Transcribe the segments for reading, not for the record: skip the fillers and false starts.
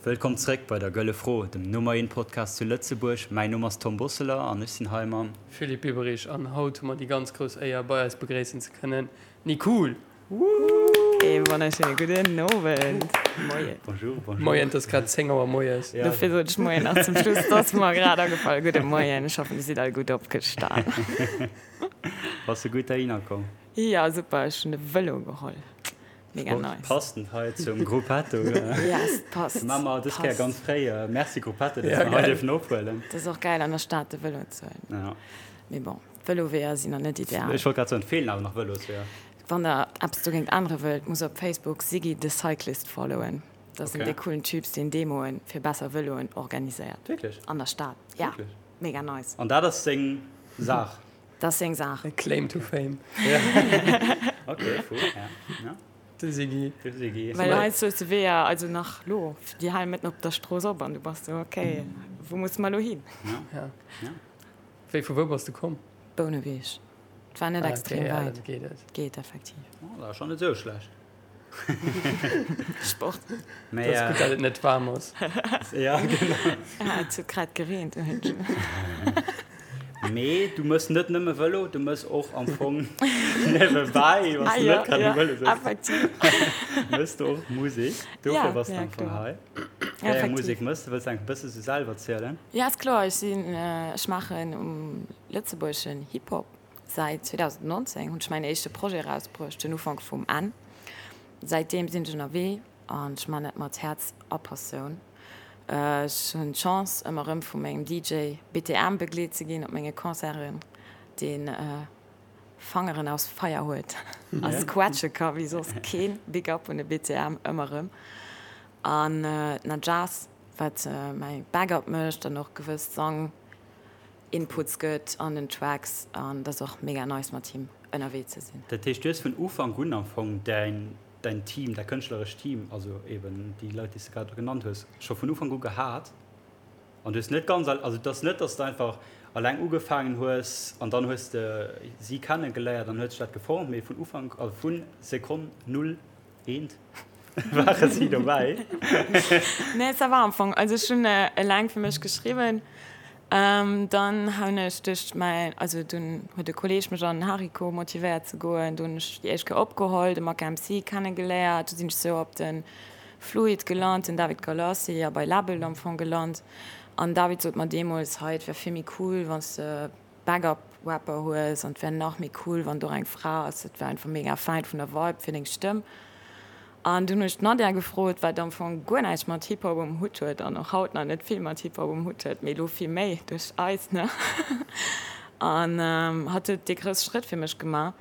Wëllkomm zréck bei der Gëlle Fro, dem Nummer eent Podcast zu Lëtzebuerg. Mäin Numm ass Tom Bosseler an ech sinn hei mam. Philippe Biberich an haut hu mer déi ganz grouss Éier bei eis begréissen ze kënnen Nicool! Ee wonnerschéine gudden Owend, Moien. Bonjour, bonjour. Moien, et ass grad 10 Auer moies. Ja. Dofir sot ech Moien nach zum Schluss, et ass mer grad agefall. Gudde Moien, ech hoffen dir sidd all gutt opgestan. Bass de gutt heihinner komm? Jo, super, ech hunn de Vëlo geholl. Mega Sport nice. Passend hei zum Gruppetto. Yes, passt. Maa mer dës Kéier ganz fréi. Merci Gruppetto, dass Ja, mer hei geil. dierfen ophuelen. Dat ass och gäil an der Stad de Vëlo ze huelen. Ja. Mee bon, d'Vëloweeër sinn nach net ideal. Ech wollt grad soen, et feelen awer nach Vëlosweeër. Wann der eppes dogéint ännere wëllt, musst op Facebook Siggy the Cyclist followen. Dat ass en Okay. dee coolen Typs, deen Demoen fir besser Vëloen organiséiert. Wierklech? An der Stad. Ja, Wierklech? mega nice. An dat ass seng Saach? Dat ass seng Saach. E Claim to fame. Ok, cool, ja. Ja. De Siggy. De Siggy. Well heiansdo hues de Weeër, also nach lo, déi halen mëtten op der Strooss op an du bass sou, ok, wou musse mer lo hin? Ja. Ja. Ja. Wéi, vu wou bass de komm? Bouneweg. Et war net Ah, extrem okay, ja, wäit. dann geet et. Geet effektiv. Oh, dat ass schonn net esou schlecht. Sport. Mee, Dat ass gutt, datt et net waarm ass. Ja, genau. Ja, et huet grad gereent. Mee du mëss net nëmme Vëlo, du mëss och am Fong niewebäi, wann s du net grad um Vëlo sëtz, Effektiv. mëss du och Musek. Dofir bass du am Fong hei. Wéi eng Musek mëss du? Wëlls du enk e bësse sou selwer zielen? Ja, ass kloer. Ech sinn, ech maachen um lëtzebuergeschen Hip-Hop. Säit 2019 hunn ech mäin éischte Projet erausbruecht, den Ufank vum Enn. Säitdeem sinn ech ënnerwee an ech man dat mat Häerz a Passioun. Ech hunn d'Chance ëmmer erëm vu mengem DJ BTM begleet ze ginn op menge Concerten, deen Fangeren aus Feier huet a squatsche ka wéi soss keen. Big up un de BTM ëmmer erëm. An d'Najaz, wat mäi Backup mécht an och gewëss Sang Inputs gëtt an den Tracks an dat ass och mega nice mat him ënnerwee ze sinn. Dat heescht du hues vun Ufank un am Fong däin däin Team, däi kënschtlerescht Team, also eben déi Leit déi s de grad genannt hues, scho vun Ufank u gehat an du hues net ganz also et ass net datt s de einfach alleng ugefaangen hues an dann hues de si kennegeléiert an huet sech dat geformt, mee vun Ufank, also vu Sekonn null eent ware si dobäi. Nee, ça va am Fong. Also ech hunn eleng fir mech geschriwwen. Dann hunn ech duerch mäin, also dunn huet e Kolleeg mech an den Hariko motivéiert ze goen. Do hunn ech déi éischt Kéier opgeholl, de Maka MC kennegeléiert. Du sinn ech sou op de Fluid gelant, den David Galassi, a bei Label am Fong gelant. An David sot mer deemools, hei et wär vill méi cool, wann s de Backup Rapper hues an et wär nach méi cool, wann do och eng Fra ass. Dat wär einfach mega fäin vun der Vibe fir deng Stëmm. An dunn hunn ech d'Nadia gefrot, wat am Fong guer näischt mat Hip-Hop um Hutt huet an och haut nach net vill mat Hip-Hop um Hutt huet, mee elo vill méi duerch eis, ne? An hatt huet dee grousse Schrëtt fir mech gemaach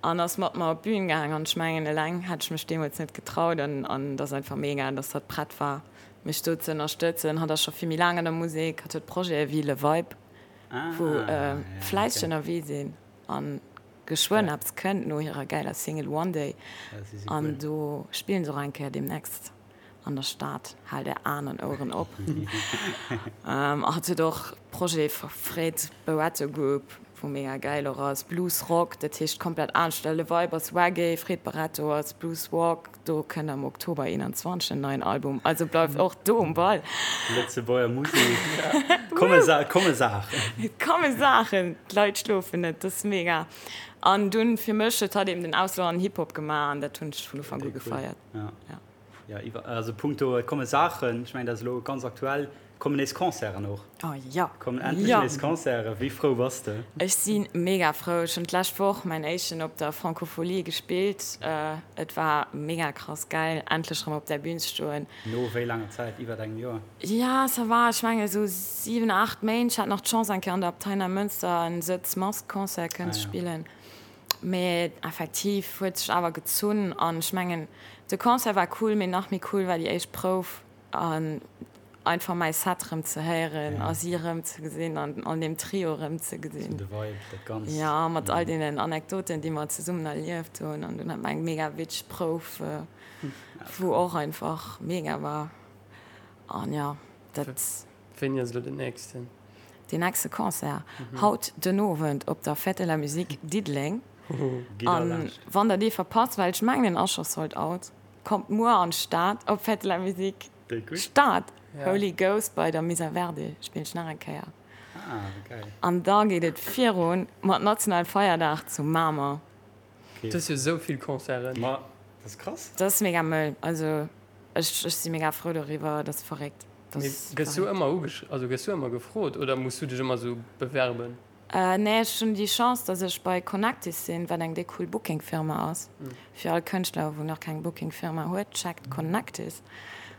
an ass mat mer op d'Bün gaang. An ech mengen, eleng hätt ech mech deemools net getraut. An et ass einfach mega, dass hatt prett war, mech do ze ënnerstëtzen. Hatt ass scho vill méi laang an der Musek, hatt huet Projete wéi Le Vibe, wou fläisseg ënnerwee sinn an geschwënn eppes kënnt no hirer gäiler Single One Day an do spillen se och eng Kéier deemnächst an der Stad. Haalt är Aen an Oueren op. Hatt huet och Projet Fred Barretto Group, wou mega gäil och ass, Blues Rock, dat heescht komplett anescht. Le Vibe ass Reggae, Fred Barretto ass Blues Rock. Do kënnt am Oktober 21 en neien Album, also bleift och do um Ball. Lëtzebuerger Musek, komme Saachen! Et komme Saachen, d'Leit schlofen net, dat ass mega. An dunn fir mech huet hatt eben den Auslo an Hip-Hop gemaach an dat hunn ech vun Ufank u gefeiert. Jo, also punkto et komme Saachen, ech mengen dat ass elo ganz aktuell, kommen nees Concerten och. Oh jo! Kommen endlech nees Concerten, wéi frou bass de? Ech si mega frou, ech hunn d'lescht Woch mäin éischten op der Francophonie gespillt, et war mega krass gäil endlech erëm op där Bühn ze stoen. No wéi laanger Zäit? Iwwert engem Joer? Ja, ça va, ech menge sou 7, 8 Méint. Ech hat nach d'Chance eng Kéier an der Abtei Neimënster en Sëtz-Mask-Concert kënnen ze spillen. Mee effektiv huet sech awer gezunn an ech mengen de Concert war cool, mee nach méi cool war déi éischt Prouf an einfach mäi Set rëm ze héieren a si rëm ze gesinn an an deem Trio rëm ze gesinn. De Vibe, dat Ganzt. Jo, mat all deenen Anekdoten déi mer zesummen erlieft hunn an dunn hat mer eng mega witzeg Prouf, wou och einfach mega war an jo, dat. Wéini ass elo den nächsten? Deen nächste Concert? Haut den Owend op der Fête de la Musique Diddeleng. An wann der dee verpasst, well ech mengen en ass scho sold out, kommt muer an d'Stad op Fête de la Musique. Stad, Holy Ghost bei der Misa Verde spillen ech nach eng Kéier. An da geet et virun mat Nationale Feierdag zu Mamer. Du hues jo esou vill Concerten. Ma dat ass krass. Dat ass mega mëll. Also ech si mega frou doriwwer, dat ass verréckt. Mee gëss du ëmmer ugesch, also gëss du ëmmer gefrot oder muss du dech ëmmer esou bewerben? Nee, ech hunn déi Chance, dass ech bei Connectis sinn, wat eng déck cool Booking-Firma ass. Fir all Kënschtler, wou nach keng Booking-Firma huet, checkt Connectis.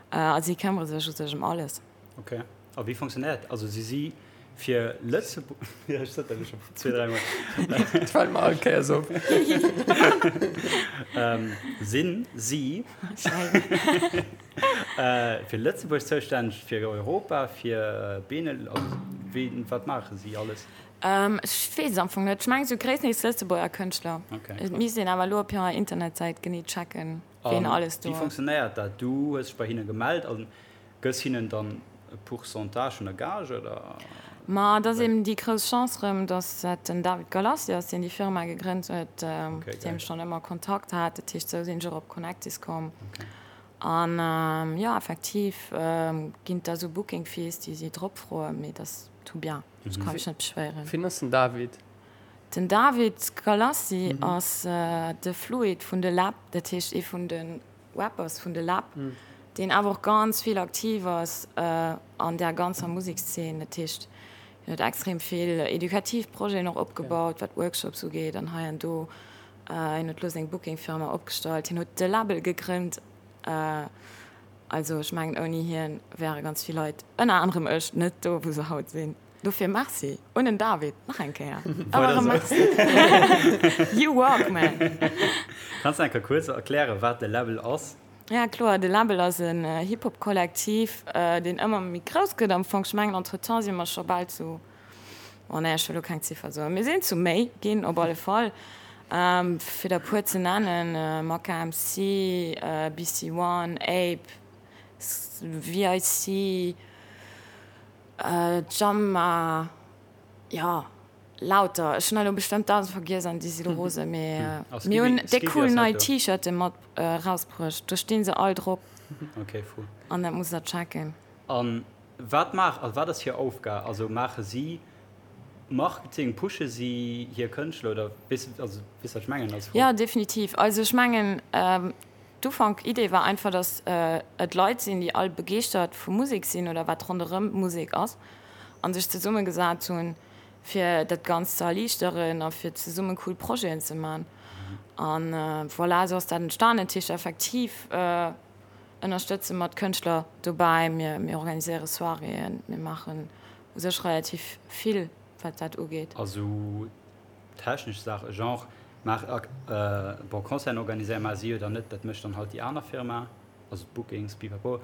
A si këmmere sech u sech ëm alles. Ok. A wéi fonctionnéiert dat? Also si si fir Lëtzebuerg, jo ech sot dat elo scho zwee, dräi mol. Dat fält mer all Kéiers op. Sinn si fir Lëtzebuerg zoustänneg, fir Europa, fir Benel, also wéi, wat maache si alles? Ech weess et am Fong net. Ech mengen esou gréisstendeels Lëtzebuerger Kënschtler. Et misst een awer elo op hirer Internetsäit genee checken, ween alles do ass. Wéi fonctionnéiert dat? Du hues dech bei hinne gemellt an Gëss hinnen dann e Pourcentage vun der Gage, oder? Ma et ass eben déi grouss Chance rëm, datt dat den David Galassi ass, deen déi Firma gegrënnt huet, mat deem ech schonn ëmmer Kontakt hat. Dat heescht, esou sinn ech och op Connectis komm. An jo, effektiv ginn et da esou Booking Fees, déi si drop froen, mee dat ass tout bien, ech ka mech net beschwéieren. Wien ass den David? Den David Galassi ass de Fluid vun de Läb, dat heescht ee vun de Rappers vun de Läb, deen awer och ganz vill aktiv ass an där ganzer Musekszeen. Dat heescht, hien huet extrem vill edukativ Projeten och opgebaut, wat Workshops ugeet an hei an do. Hien huet elo seng Booking-Firma opgestallt, hien huet de Label gegrënnt. Also ech mengen, ouni hien wäre ganz vill Leit, ënner anerem ech, net do, wou se haut sinn. Dofir Merci un den David nach eng Kéier. Ëmmer erëm Merci. You rock, man! Kanns de eng Kéier kuerz erklären, wat de Läbbel ass? Ja, kloer. De Läbbel ass en Hip-Hop-Kollektiv, deen ëmmer méi grouss gëtt am Fong. Ech mengen, entretemps si mer scho bal zu, oh nee, ech wëll elo keng Ziffer soen, mir sinn zu méi ginn op alle Fall. Fir der e puer ze nennen, Maka MC, BC One, Ape, VIC, Jamma, jo, lauter. Ech hunn elo bestëmmt 1.000 vergiess an déi si lo rose, mee mir hunn déck cool nei T-Shirte mat erausbruecht. Do sti se all drop. Ok, fou. An dat musst der checken. An wat maach, also wat ass hir Aufgab? Also maache si Marketing, pushe si hir Kënschtler oder weess, also weess wat ech mengen als Fro? Jo, definitiv. Also ech mengen, D'Ufank Idee war einfach, dass et Leit sinn, déi all begeeschtert vu Musek sinn oder wat ronderëm Musek ass an sech zesumme gesat hunn, fir dat Ganzt ze erliichteren a fir zesumme cool Projeten ze man. An voilà, esou ass dat entstanen. Dat heescht effektiv ënnerstëtze mer d'Kënschtler dobäi, mir mir organiséiere Soiréeën, mir maachen u sech relativ vill wat dat ugeet. Also Technesch Saachen, genre maach bon Concerten organiséieren, maache si jo dann net, dat mécht dann halt déi aner Firma, also d'Bookings, pipapo,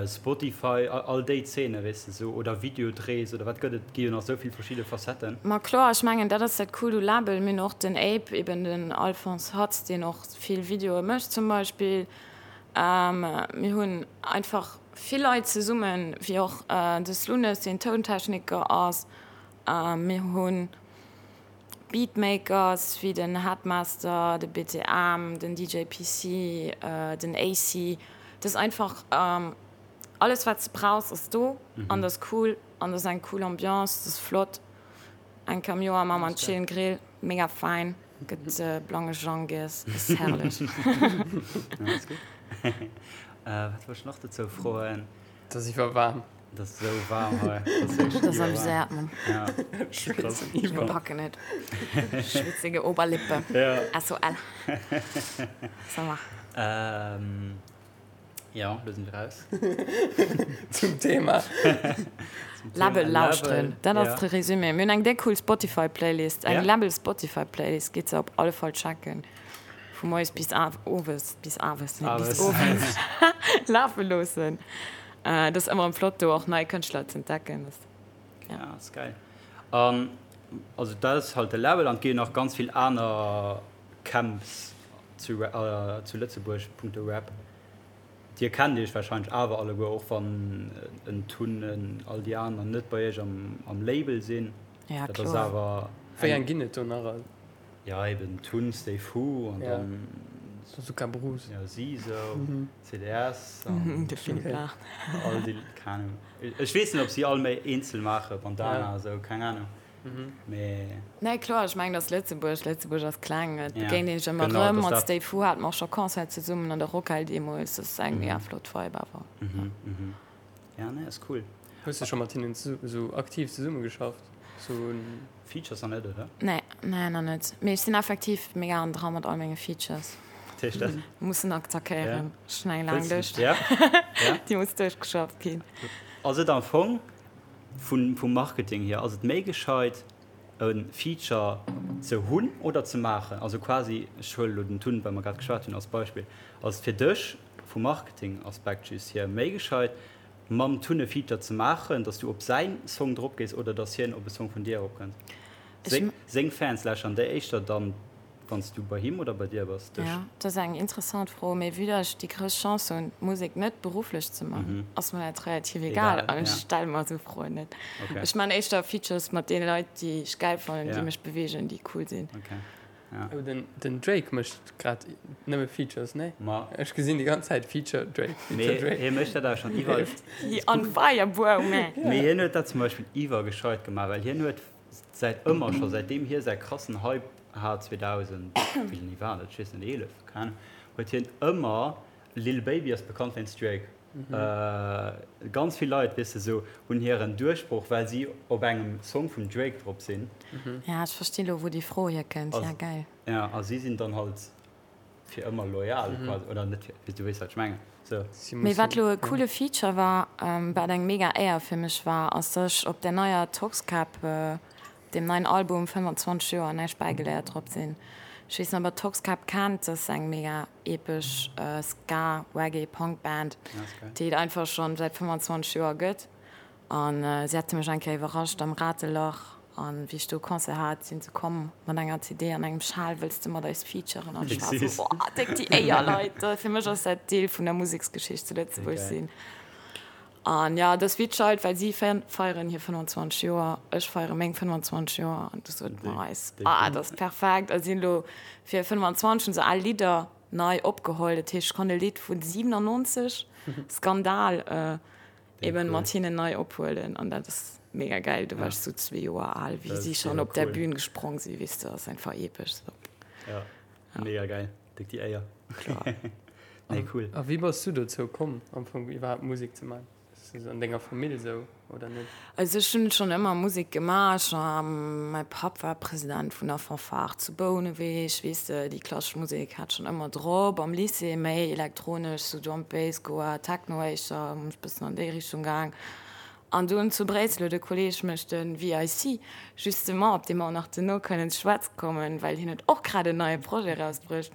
Spotify, all déi Zeene weess de sou, oder Videodrehs oder wat gëtt et, gi jo nach sou vill verschidde Facetten. Ma kloer, ech mengen dat ass dat Coolt u Label. Mir hunn och den Ape, eben den Alphonse Hatz, deen och vill Videoe mécht zum Beispill. Mir hunn einfach vill Leit zesummen, wéi och de Slunes, deen Tountechniker ass. Mir hunn Beatmakers wéi den Headmaster, de BTM, den DJ PC, den AC. Et ass einfach alles wat s de brauchs ass do an et ass cool an et ass eng cool Ambiance, et ass flott. Eng Kéier am Joer maache mer en chillen Grill, mega fein, gëtt blange Jang giess, ass herrlech. Wat wollt ech nach dozou froen? Et ass iwwerwaarm. Et ass esou waarm hei. Dat ass amuséiert, Mann. Ja. Krass. Mir packen et. Schwitzige Oberlippe. Ja. SOL. Ça va. Ähm, ja, lo sinn wir raus. Zum Thema. Zum Thema Läbbel lauschteren. Dat ass ja. de Résumé. Mir hunn eng déck cool Spotify-Playlist. Eng Ja. Läbbel-Spotify-Playlist. Gitt se op alle Fall checken. Vu moies bis owes, bis awes, nee, bis Awes. owes lafe loossen. Et ass ëmmer erëm flott do och nei Kënschtler ze entdecken. Ja, ass geil. An also dat ass halt de Label an et gi jo nach ganz vill aner Camps zu zu Lëtzebuerg punkto Rap. Dir kennt iech warscheinlech awer alleguer, och wann en Tun, en all déi aner net bei iech am am Label sinn. Ja, Dat ass kloer. awer Wéi eng. eng ginn et do nach all? Ja eben Tun, Stay Fu an Ja. dann. Bazooka Bruce. Jo, si sou, CDS an. De Philippe Laach. All déi, keng Ahnung. Ech weess net, ob si all méi eenzel maachen, Bandana a sou, keng Ahnung. Mee. Nee, kloer, ech mengen, dass Lëtzebuerg, Lëtzebuerg ass kleng, et begéint een sech ëmmer erëm. Mat Stay Fu hate mer och scho Concert zesummen an der Rockhal deemools. Dat ass eng mega flott Vibe awer. Ja, nee, ass cool. Hues de scho mat hinnen esou aktiv zesummegeschafft? Sou. Features nach net, oder? Nee, nee, nach net. Mee ech sinn effektiv mega an dra mat all menge Features. Wat heescht dat? Mussen attackéieren. Ech hunn eng laang Lëscht. Ja? Ja? Déi muss duerchgeschafft ginn. Ass et am Fong Vun vum Marketing hier, ass et méi gescheit e Feature ze hunn oder ze maachen? Also quasi, ech huele lo den Tun, well mer grad geschwat hunn, als Beispill. Ass et fir dech vum Marketing-Aspekt just hier méi gescheit mam Tun e Feature ze maachen, dass du op säin Song drop gees oder dass hien op e Song vun dir eropkënnt? Seng seng Fans lauschteren déi éischter dann Wann s du bei him oder bei dir bass, dech? Jo, dat ass eng interessant Fro. Mee vue dass ech déi grouss Chance hunn, Musek net berufflech ze man, ass mer dat relativ egal an ech stelle mer esou Froen net. Ech man éischter Features mat deene Leit, déi ech gäil fannen, déi mech beweegen, déi cool sinn. Oh, den Drake mécht grad nëmme Features, nee? Ech gesinn déi ganz Zäit Feature Drake, Feature Drake. Mee hie mécht dat awer schonn iwwer. He on fire, bro, man! Mee hien huet dat zum Beispill iwwergescheit gemaach, well hien huet säit ëmmer scho, säitdeem hie säi krassen Hype hat 2000, wéini war dat, ech weess net, 11, keng Ahnung, huet hien ëmmer, Lil Baby ass bekannt wéinst Drake, ganz vill Leit, weess de, sou hunn hiren Duerchbroch, well si op engem Song vum Drake drop sinn. Ja, ech verstinn elo wou déi Fro hierkënnt, ja geil. Ja, a si sinn dann halt fir ëmmer loyal quasi, oder net fir, du weess wat ech mengen, sou. Mee wat lo e coole Feature war, wat eng mega Éier fir mech war, ass dass ech op der neier Toxkäpp, deem neien Album 25 Joer näischt bäigeléiert drop sinn. Ech weess net ob der Toxkäpp kennt, dat ass eng mega epesch Ska, Reggae, Punk Band, déi et einfach schonn säit 25 Joer gëtt. An si hate mech eng Kéier iwwerrascht am Ratelach. An wéi ech do e Concert hat, sinn se komm mat enger CD an engem Schal, Wëlls de mat eis featuren? An ech war esou, Boah, déck déi Éier, Leit! Fir mech ass dat Deel vun der Museksgeschicht zu Lëtzebuerg sinn. An jo, et ass wéi d'Scheit, well si feieren hir 25 Joer, ech feiere meng 25 Joer. An du sote mer eis, Ah, dat ass perfekt! A sinn elo fir 25 hunn se al Lidder nei opgeholl. Dat heescht, ech konnt e Lidd vun 97, Skandal, Eben mat hinnen nei ophuelen an dat ass mega geil. Do war ech sou zwee Joer al, wéi si schonn op der Bühn gesprong sinn, weess de, ass einfach epesch sou. Ja, mega geil, déck déi Éier. Kloer. Nee, cool. A wéi bass du dozou komm am Fong iwwerhaapt Musek ze man? Ass dat an denger Famill sou oder net? Also ech hunn schonn ëmmer Musek gemaach. Mäi Papp war President vun der Fanfare zu Bouneweg, weess de, déi klassesch Musek hat schonn ëmmer drop. Am Lycée méi elektronesch, sou Drum Bass, Goa, Techno éischter, hunn ech bëssen an déi Richtung gaang. An dunn zu Bréissel huet e Kolleeg mech, de VIC, justement, op dee mer och nach duerno kënnen ze schwätze kommen, well hien huet och grad en neie Projet erausbruecht,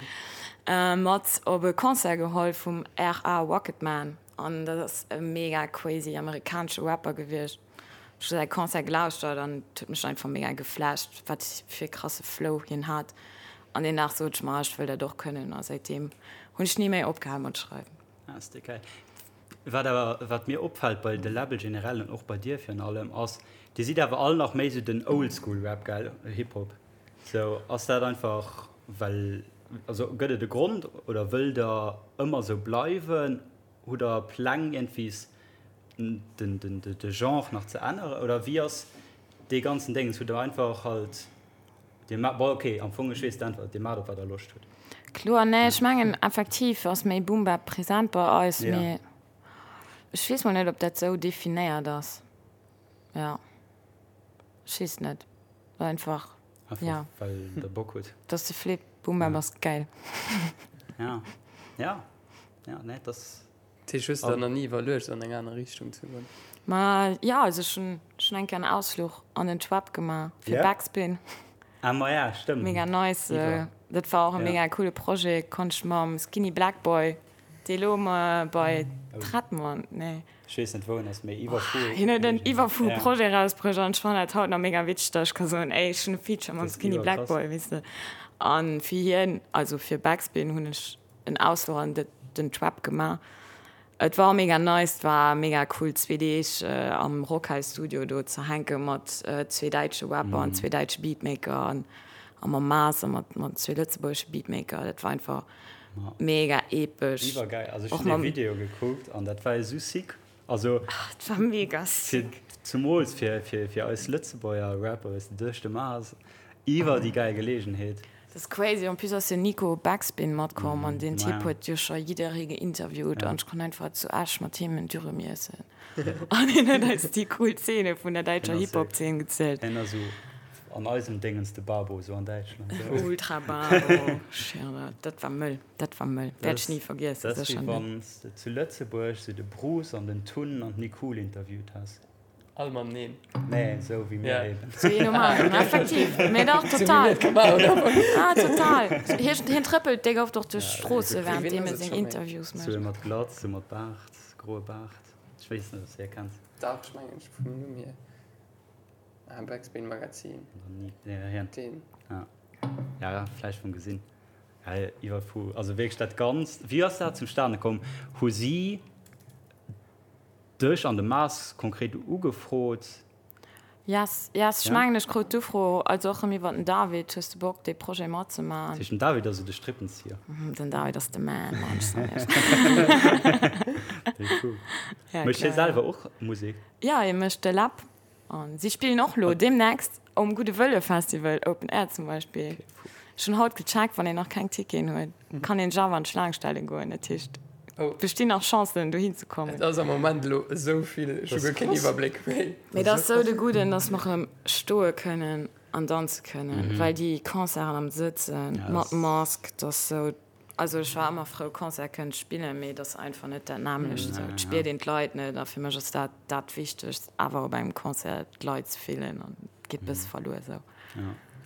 mat op e Concert geholl vum RA Rocketman. An dat ass e mega crazy amerikanesche Rapper gewiescht. Ech hu säi Concert gelauschtert an et huet mech einfach mega geflasht, wat fir e krasse Flow hien hat. An deen Dag sot ech mer, ech wëll dat och kënnen. A säitdeem hunn ech ni méi opgehal mat schreiwen. Ah, ass déi geil. Wat awer, wat mir opfält bei de Label generell an och bei dir virun allem, ass, dir sidd awer all nach méi sou den Oldschool-Rap, gell, Hip-Hop. Sou, ass dat einfach well, also gëtt et e Grond oder wëllt der ëmmer sou bleiwen? Hutt der Pläng iergendwies den den de Genre nach ze änneren oder wéi ass dee ganzen Déngens? Hutt der einfach halt dir ma bon okay am Fong ech weess d'Äntwert, dir maacht op wat der Loscht hutt. Kloer, nee ech mengen effektiv ass méi Boom Bap present bei eis, mee ech weess mol net ob dat sou definéiert ass, jo ech weess net. Einfach, Einfach ja. well der Bock hutt. Dat ass de Flip. Boom Bap ass geil. Ja, ja, ja, nee, dat. Dat heescht, hues de der nach ni iwwerluecht, an eng aner Richtung ze goen? Ma ja, also ech hunn schonn eng Kéier en Ausfluch an den Trap gemaach fir Ja? Backspin. Ah, ma ja, stëmmt. Mega nice. Iwwer. Dat war och e Ja. mega coole Projet. Konnt ech mam Skinny Black Boy, dee lo bei Trettmann, nee. Ech weess net wou en ass, mee iwwerfou. Hien huet en iwwerfou Projet erausbruecht an ech fannen dat haut nach mega witzeg, datt ech ka soen, ey, ech hunn e Feature mam Skinny Black Boy, weess de. An fir hien, also fir Backspin hunn ech en Ausfluch an den Trap gemaach. Et war mega nice, et war mega cool zwee Deeg am Rockhouse Studio do ze hänke mat zwee däitsche Rapper an zwee däitsche Beatmaker an a mam Maas a mat zwee lëtzebuergesche Beatmaker. Dat war einfach. Mega epesch. Iwwergeil. Also ech hunn dee Video gekuckt an dat war esou sick. Also dat war mega sick. Zumools fir, fir, fir eis Lëtzebuerger Rapper, weess de, duerch de Mars, iwwer déi gäil Geleegenheet. Dat ass crazy. En plus ass jo Nico Backspin matkomm an deen Typ huet jo scho jidderee geinterviewt an ech konnt einfach zu Esch mat him en Dürüm iessen an hien huet eis déi cool Zeene vun der däitscher Hip-Hop-Zeen gezielt. Hien ass esou an eisem Déngens de Babo, esou an Däitschland. Ultra Babo, schwéier, dat war mëll, dat war mëll, wäert ech ni vergiessen, Dat ass wéi wann s de zu Lëtzebuerg esou de Bruce an den Tun an d'Nicool interviewt häss. All mateneen. Nee, esou wéi mir eben. Sou wéi normal, effektiv. Mee dach, total. Ah, total. Hien, hien trëppelt déck oft och duerch d'Stroosse während deem e seng Interviews mécht. Sou ee mat Glatz, sou mat Baart, groe Baart. Ech weess net, ob s de hie kenns. Dach, ech mengen, ech vum Numm hier. Ah, Backspin Magazin. Ja, hien. Deen. Ja. Ja, vläicht vum Gesinn. Ja, iwwer vu, also wierklech dat Ganzt. Wéi ass dat zustane komm? Hu si. Dech an de Mars konkret ugefrot? Yes, yes, ech mengen ech krut d'Ufro, also och rëm iwwer den David, hues de Bock dee Projet matzemaachen? Dat heescht den David ass esou de Strippenzieher? Den David ass de Man, Mann, ech soen iech. Déi cool. Mécht hie selwer och Musek? Jo, hie mécht de Läb An si spillen och lo deemnächst um Gudde Wëlle Festival Open Air zum Beispill. Ech hunn haut gecheckt, wann een nach keng Ticketen huet, kann een sech awer an d'Schlaang stelle goen. Dat heescht, et bestinn nach Chancen dohin ze kommen. Et ass am Moment elo esou vill, ech hu guer keen Iwwerbléck méi. Mee et ass esou de Gudden, dass mer erëm stoe kënnen an danze kënnen, well déi Concerten am Sëtzen mat Mask, dat ass esou. Also ech war ëmmer frou Concert kënnen ze spillen, mee et ass einfach net dat nämmlecht esou. Et spiert een d'Leit net a fir mech ass dat dat Wichtegst awer op engem Concert d'Leit ze fillen an et geet bësse verluer esou.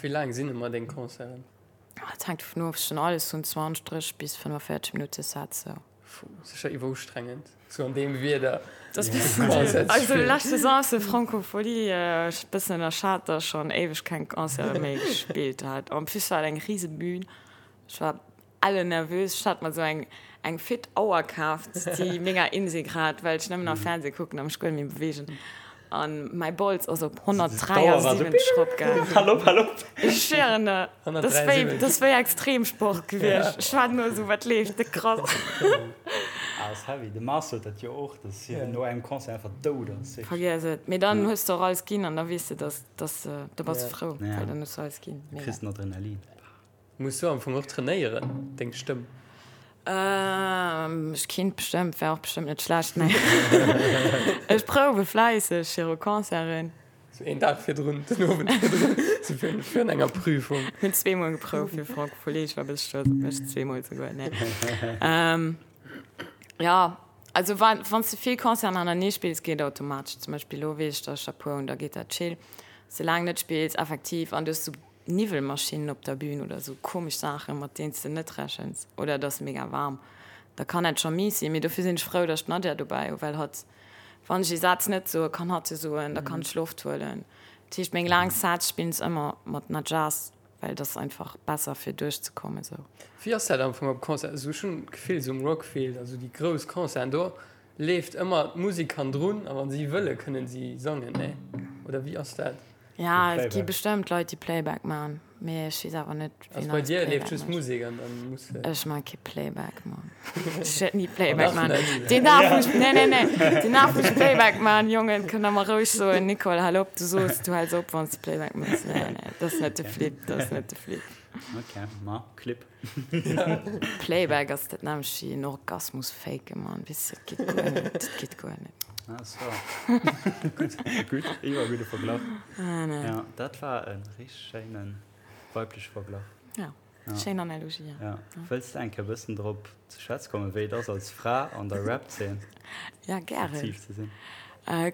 Wéi laang sinn ëmmer deng Concerten? Et hänkt dovun of, ech hunn alles vun 20, 30 bis 45 Minutte Sets esou. Puh, sécher iwwerustrengend esou an deem Wieder Concert ze Also spillen. lescht Saison ass de Francophonie, ech bëssen ënnerschat, datt ech schonn éiweg keng Concerte méi gespillt hat. En plus war et eng rise Bühn. Ech war elle nervös. Ech hat mer sou eng eng fit Auer kaaft, déi menger Insig hat, well ech nëmmen nach Fernseh kucken a mech guer net méi beweegen. An mäi Bols ass op 173 eropgaangen. Hal op, hal op! Ech schwéieren der, dat ass wéi, dat ass wéi Extremsport gewiescht. Ech war no esou, wat leeft, de krass. Ah, ass heavy. De Mars huet dat jo och, dass hien no engem Concert einfach dout ass. Vergiess et. Mee dann hues de och alles ginn an da weess de, dass, dass, da bass de frou, well dann hues de alles ginn. Du kriss den Adrenalin. Muss du am Fong och trainéieren, deng Stëmm? Ech kinnt bestëmmt, wär och bestëmmt net schlecht, mee ech prouwe fläisseg viru Concerten. Sou een Dag virdrun, den Owend virdrun, sou virun enger Prüfung. Hunn zweemol geprouft fir Francophonie, ech war e bësse stolz op mech, zweemol souguer, nee. Jo, also wa wann s de vill Concerten hanernee spills, geet automatesch. Zum Beispill elo weess ech, datt ech der puer hunn, da geet dat chill. Soulaang net spills, effektiv, an du hues sou Niwwelmaschinnen op der Bühn oder sou komesch Saachen, mat deenen s de net rechens, oder et ass mega waarm, da kann dat scho mies sinn. Mee dofir sinn ech frou, datt ech d'Nadja dobäi hu, well hatt, wann ech ee Saz net soen, kann hatt e soen, da kann ech Loft huelen. Dat heescht, meng laang Saz spillen ech ëmmer mat Nadjas, well et ass einfach besser fir duerchzekommen sou. Wéi ass dat am Fong op Concert? Also ech hunn d'Gefill sou um Rockfield, also déi grouss Concerten, do leeft ëmmer d'Musek hannendrun a wann si wëlle kënnen si sangen, nee? Oder wéi ass dat? Ja, et gi bestëmmt Leit, déi Playback man, mee ech weess awer net, wien alles Playback mécht. Ech man kee Playback, Mann. Ech wäert ni Playback man. Deen Dag, wou ech, nee, nee, nee, deen Dag, wou ech Playback man, Jongen, kënnt der mer roueg soen, Nicole, hal op, du soos, du häls op, wann s de Playback méchs. Nee, nee, dat ass net de Flip, dat ass net de Flip. Ok, ma Clip. Playback ass dat nämmlecht wéi en Orgasmus faken, Mann, weess de, dat geet guer net, dat geet guer net. Ah so. Gutt, gutt, iwwer gudde Verglach. Ah, nee. Ja, dat war e richteg schéine weibleche Verglach. Ja, schéin Analogie, ja. Ja. Wëlls de eng Kéier e bëssen drop ze schwätze kommen, wéi et ass als Fra an der Rap-Zeen Ja, gären. aktiv ze sinn?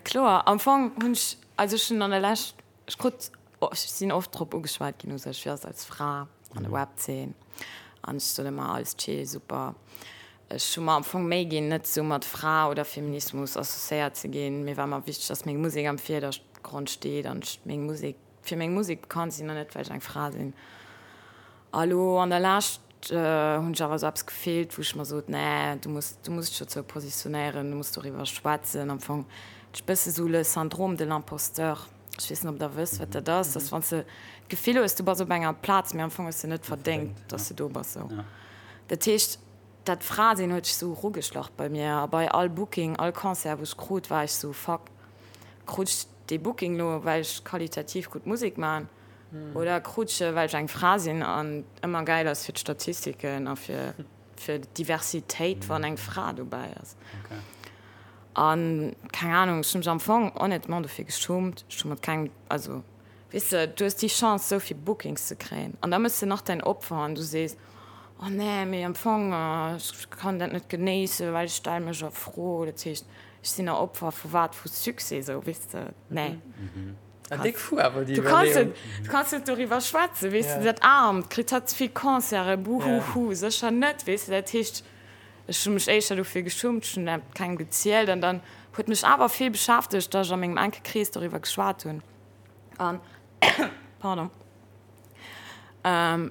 Kloer, am Fong hunn ech, also ech hunn an der Lescht, ech krut, ech sinn oft drop ugeschwat ginn u sech, wéi ass et als Fra an der Rap-Zeen an ech soen ëmmer alles chill, super. Ech hu mer am Fong Méi ginn, net esou mat Fra oder Feminismus associéiert ze ginn. Mir war ëmmer wichteg, dass meng Musek am Virdergrond steet an ech meng Musek fir meng Musek bekannt sinn an net well ech eng Fra sinn. A lo an der Lescht hunn ech awer esou eppes gefillt, wou ech mer sot, nee, du muss, du muss dech dozou positionéieren, du muss doriwwer schwätzen. Am Fong ech bësse sou le syndrome de l'imposteur. Ech weess net, ob Der wësst, wat dat ass, dass wann s de d'Gefill hues, du bass op enger Plaz, mee am Fong hues de net verdéngt, dass de do bass. Sou. Dat heescht, dat Fra-Sinn huet sech sou erugeschlach bei mir a bei all Booking, all Concert wou ech krut, war ech sou, fuck, krut ech dee Booking lo well ech qualitativ gutt Musek man oder krut ech e well ech eng Fra sinn an ëmmer gäil ass fir d'Statistiken a fir fir d'Diversitéit wann eng Fra dobäi ass. An keng Ahnung, ech hu mech am Fong honnêtement dofir geschummt, ech hu mat kengem, also Weess de, du hues déi Chance, esou vill Bookings ze kréien an da méchs de nach däin Opfer an du sees, Oh nee, mee am Fong, ech kann dat net genéissen, well ech stelle mech a Fro. Dat heescht, ech sinn e Opfer vu wat? Vu Succès, esou, weess de? Nee. Déck fou awer déi Du kanns Iwwerleeung. net, du kanns net doriwwer schwätzen, weess de, dat Aarmt, kritt hatt ze vill Concerten, buhuhu, sécher net, weess de. Dat heescht, ech hu mech éischter dofir geschummt, ech hunn dat kengem gezielt an dann huet mech awer vill beschäftegt, datt ech a mengem enke Krees doriwwer geschwat hunn. An, pardon,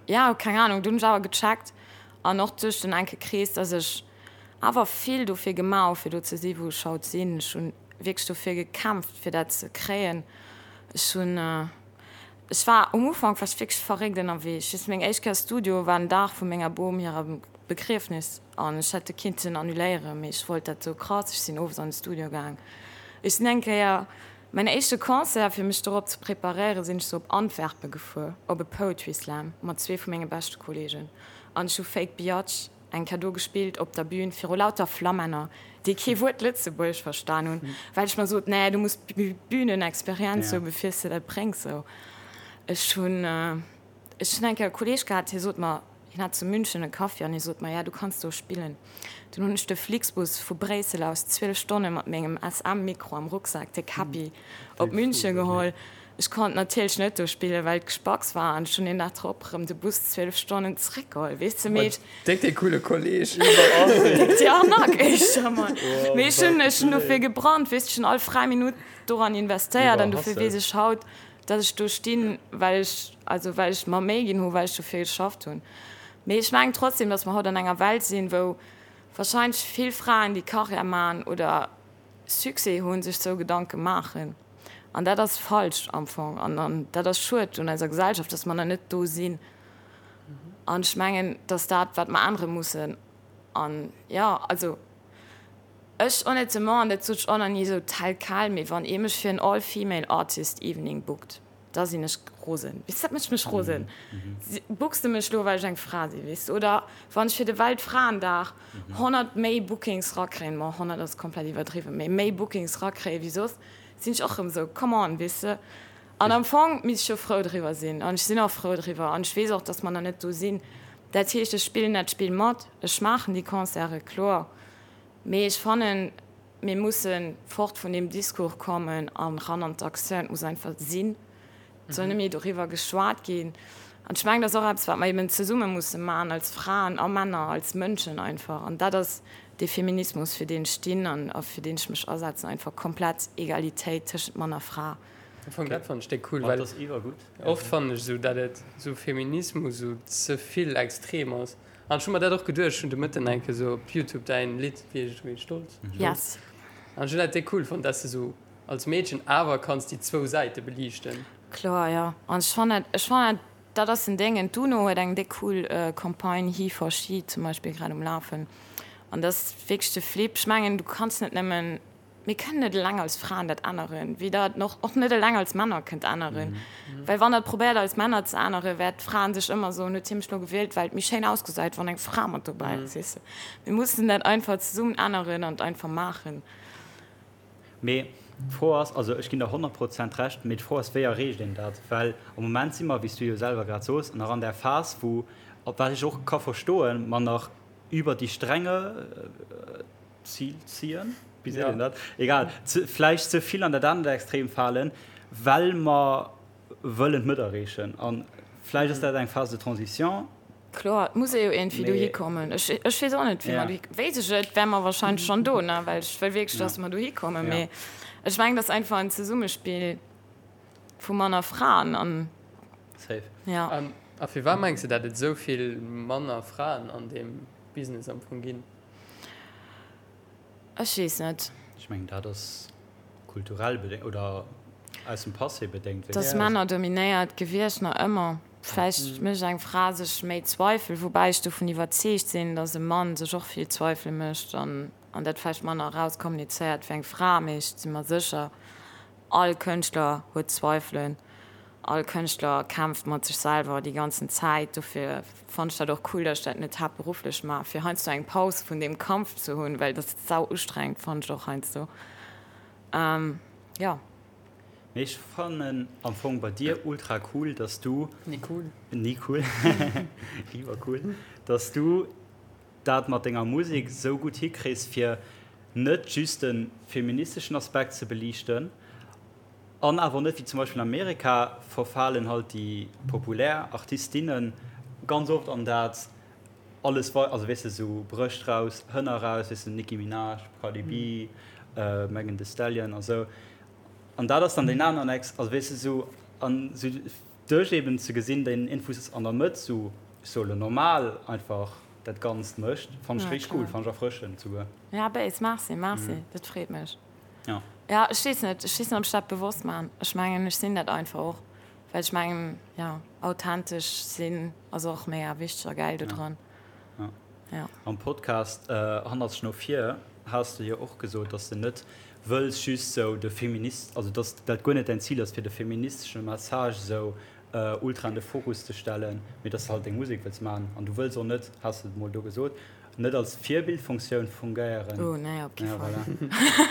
jo, keng Ahnung, dunn hunn ech awer gecheckt an och duerch den enke Krees, dass ech awer vill dofir gemaach hu fir do ze si wou ech haut sinn. Ech hunn wierklech dofir gekämpft fir dat ze kréien. Ech hunn, ech war um Ufank war ech wierklech verréckt ënnerwee. Ech weess, meng éischt Kéier Studio war den Dag vu menger Bom hirem Begriefnis an ech hätt e kinnten annuléieren, mee ech wollt dat sou krass. Ech sinn owes an de Studio gaang. Ech sinn eng Kéier Mäin éischte Concert, fir mech dorop ze preparéieren, sinn ech sou op Antwerpen gefuer, op e Poetry Slam mat zwee vu menge beschte Kollegen. An ech hu Fake Biatch eng Kéier do gespillt op der Bühn viru lauter Flammänner, déi kee Wuert Lëtzebuergesch verstan hunn, well ech mer sot, nee, du muss Bühnenexperienz hu bevir s de dat bréngs. Sou, ech hunn, ech hunn eng Kéier e Kolleg gehat, hie sot mer, Hien hat zu München e Kaffi an hie sot mer, ja, du kanns do spillen. Dunn hunn ech de Flixbus vu Bréissel aus 12 Stonne mat mengem SM-Mikro am Rucksak, de Käppi, op München geholl. Ech konnt natierlech net do spillen, well et gespacks war an ech hunn een Dag drop erëm de Bus 12 Stonnen zeréckgeholl, weess de. Mee ech. Déck dee coole Kolleg. Déck déi Arnaque éischter emol. Mee ech hunn, ech hunn dofir gebrannt, weess de, ech hunn all fräi Minutt doran investéiert an dofir weess ech haut, Dass ech do stinn, well ech, also well ech mer Méi ginn hu, well ech dofir geschafft hunn. Mee ech mengen trotzdem, dass mer haut an enger Welt sinn, wou wahrscheinlech vill Fraen, déi Karriär maachen oder Succès hunn, sech sou Gedanke maachen. An dat ass falsch am Fong. An, an dat ass schued un eiser Gesellschaft, dass mer nach net do sinn. An ech mengen, dass dat, wat mer ännere mussen. An jo, also. Ech honnêtement, an dat sot ech och nach ni esou tel quel, mee wann ee mech fir en All Female Artist Evening bookt, da sinn ech rosen. Weess, dat mécht mech rosen. Books de mech lo, well ech eng Fra sinn, weess de? Oder wann ech fir de Weltfraendag 100 méi Bookings rakréien, bon, 100 ass komplett iwwerdriwwen, mee méi Bookings rakréien wéi soss, sinn ech och erëm esou, come on, weess de? An am Fong misst ech jo frou driwwer sinn, an ech sinn och frou driwwer, an ech weess och, dass mer nach net do sinn. Dat heescht, ech spillen dat Spill mat, ech maachen déi Concerte, kloer. Mee ech fannen, mir musse fort vun deem Discours kommen an ran an d'Aktioun. Et muss einfach sinn. Et soll net méi doriwwer geschwat ginn. An ech mengen, dat ass och eppes, wat mer eben zesumme musse maachen, als Fraen a Männer, als Mënschen einfach. An dat ass dee Feminismus, fir deen ech stinn an a fir deen ech mech asetzen, einfach komplett Egalitéit tëschent Mann a Fra. Am Fong, dat fannen ech déck cool, well oft fannen ech esou, dat et esou Feminismus esou ze vill extrem ass. An ech hu mer dat och geduecht, ech hunn de Mëtten eng Kéier sou op Youtube däin Lidd, wéi heescht et méi, Stolz? Yes. An ech hunn dat déck cool fonnt, dass de sou als Meedchen awer kanns déi zwou Säite beliichten. Kloer, jo. An ech fannen dat, ech fannen dat, dat ass en Déngen. D'UNO huet eng déck cool Campagne He for She zum Beispill grad um Lafen. An dat ass wierklech de Flip. Ech mengen, du kanns net nëmmen Mir kënnen net eleng als Fraen dat änneren, wéi Der et och net eleng als Männer kënnt änneren. Well wann Der et probéiert als Männer ze änneren, wäert d'Fraen sech ëmmer soen, huet hie mech lo gewielt, well et méi schéin ausgesäit, wann eng Fra mat dobäi ass. Weess de? Mir mussen dat einfach zesummen änneren an et einfach maachen. Mee d'Fro ass, also ech ginn der 100 Prozent Recht, mee d'Fro ass, wéi erreecht een dat? Well am Moment si mer, wéi s du jo selwer grad soos, nach an där Phas, wou, wat ech och ka verstoen, mer nach über die Stränge, Zil ziehen, wéi seet een dat? Egal, ze, vläicht ze vill an dat anert Extrem falen, well mer wëllen d'Mëtt erreechen. A vläicht ass dat eng Phase de transition. Kloer, et muss ee jo iergendwéi dohi kommen. Ech, ech weess och net, wéi mer dohi, wéisst ech et, wäre mer wahrscheinlech schonn do, ne, well ech wëll wierklech, dass mer dohi kommen. Mee ech mengen, et ass einfach en Zesummespill vu Mann a Fraen an. Safe. Ja. A firwat mengs de, dat et esou vill manner Fraen an deem Business am Fong ginn? Ech weess net. Ech mengen dat ass kulturell bedéngt oder aus dem Passé bedéngt. Et ass männerdominéiert gewiescht, nach ëmmer. Vläicht mécht eng Fra sech méi Zweifel, woubäi ech dovun iwwerzeegt sinn, datt e Mann sech och vill Zweifele mécht an an dat vläicht manner erauskommunizéiert wéi eng Fra. Mee ech si mer sécher, all Kënschtler huet Zweifelen, all Kënschtler kämpft mat sech selwer déi ganzen Zäit. Dofir fannen ech dat och cool, datt ech dat net haaptberufflech maachen, fir heiansdo eng Paus vun deem Kampf ze hunn, well dat ass sau ustrengend, fannen ech och heiansdo. Jo. Mee ech fannen am Fong bei dir ultra cool, dass du. Ni cool. Ni cool. Iwwercool. Dass du dat mat denger Musek sou gutt hikriss, fir net just de feministeschen Aspekt ze beliichten an awer net, wéi zum Beispill an Amerika verfalen halt déi populär Artistinnen ganz oft an dat alles wei, also weess de, sou Brëscht raus, Hënner raus, weess de, Nicki Minaj, Cardi B, Megan Thee Stallion a sou. An dat ass dann deen aneren Ex, also weess de, sou an sou duerch eben ze gesinn, deen Infus an der Mëtt sou, ech soe lo normal einfach dat Ganzt mécht, fannen ech richteg cool, fannen ech erfrëschend souguer. Ja, béis, merci, merci, dat freet mech. Ja. Ja, ech weess net, ech weess net, ob ech dat bewosst maachen. Ech mengen, ech sinn dat einfach och, well ech mengen, ja, authentesch sinn ass och mega wichteg a gäil do dran. Ja. Ja. Am Podcast Hannertzeg no vir has de jo och gesot, dass de net wëlls just sou de Feminist, also dass dat guer net däin Zil ass, fir de feministesche Message sou ultra an de Fokus ze stellen, mee dass de halt deng Musek wëlls maachen an du wëlls och net, has de mol do gesot, net als Virbildfunktioun fungéieren. Oh nee, op kee Fall. Voilà.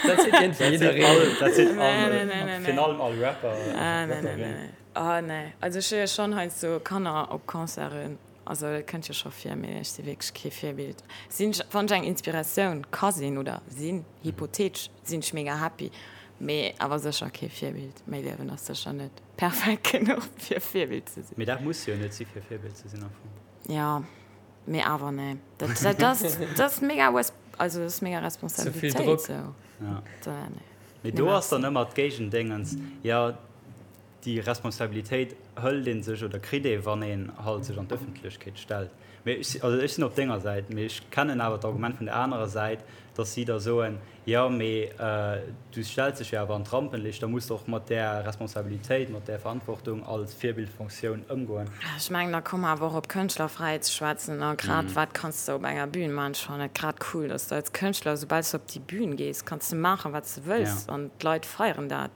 Dat seet iergendwéi jiddereen. Dat seet all, Nee, nee, nee, nee. virun allem all Rapper, Ah, nee, nee, Rapperin. nee, nee. Ah, nee. Also ech hu jo schonn heiansdo Kanner op Concerten, also dat kënnt jo scho vir, mee ech si wierklech kee Virbild. Sinn ech, wann ech eng Inspiratioun ka sinn oder sinn, hypothetesch, sinn ech mega happy, mee awer sécher kee Virbild. Mäi Liewen ass sécher net perfekt genuch fir Virbild ze sinn. Mee dat muss jo net si fir Virbild ze sinn am Fong. Jo, mee awer nee. Dat, dat ass, dat ass mega, also dat ass mega Responsabilitéit. Ze vill Drock. Sou. Ja. Da, nee. Mee do ass dann ëmmer d'Géigendéngens, jo, déi Responsabilitéit hëlt ee sech oder kritt ee wann een halt sech an d'Ëffentlechkeet stellt. Mee ech, also ech sinn op denger Säit, mee ech kennen awer d'Argument vun der anerer Säit, datt si da soen, jo mee du stells dech jo awer an d'Rampenlicht, da muss de och mat där Responsabilitéit, mat där Verantwortung als Virbildfunktioun ëmgoen. Ech mengen, da komme mer awer och op Kënschtlerfräiheet ze schwätzen a grad wat kanns de op enger Bühn maachen. Ech fannen et grad cool, datt s de als Kënschtler, soubal s de op déi Bühn gees, kanns de maachen, wat s de wëlls an d'Leit feieren dat.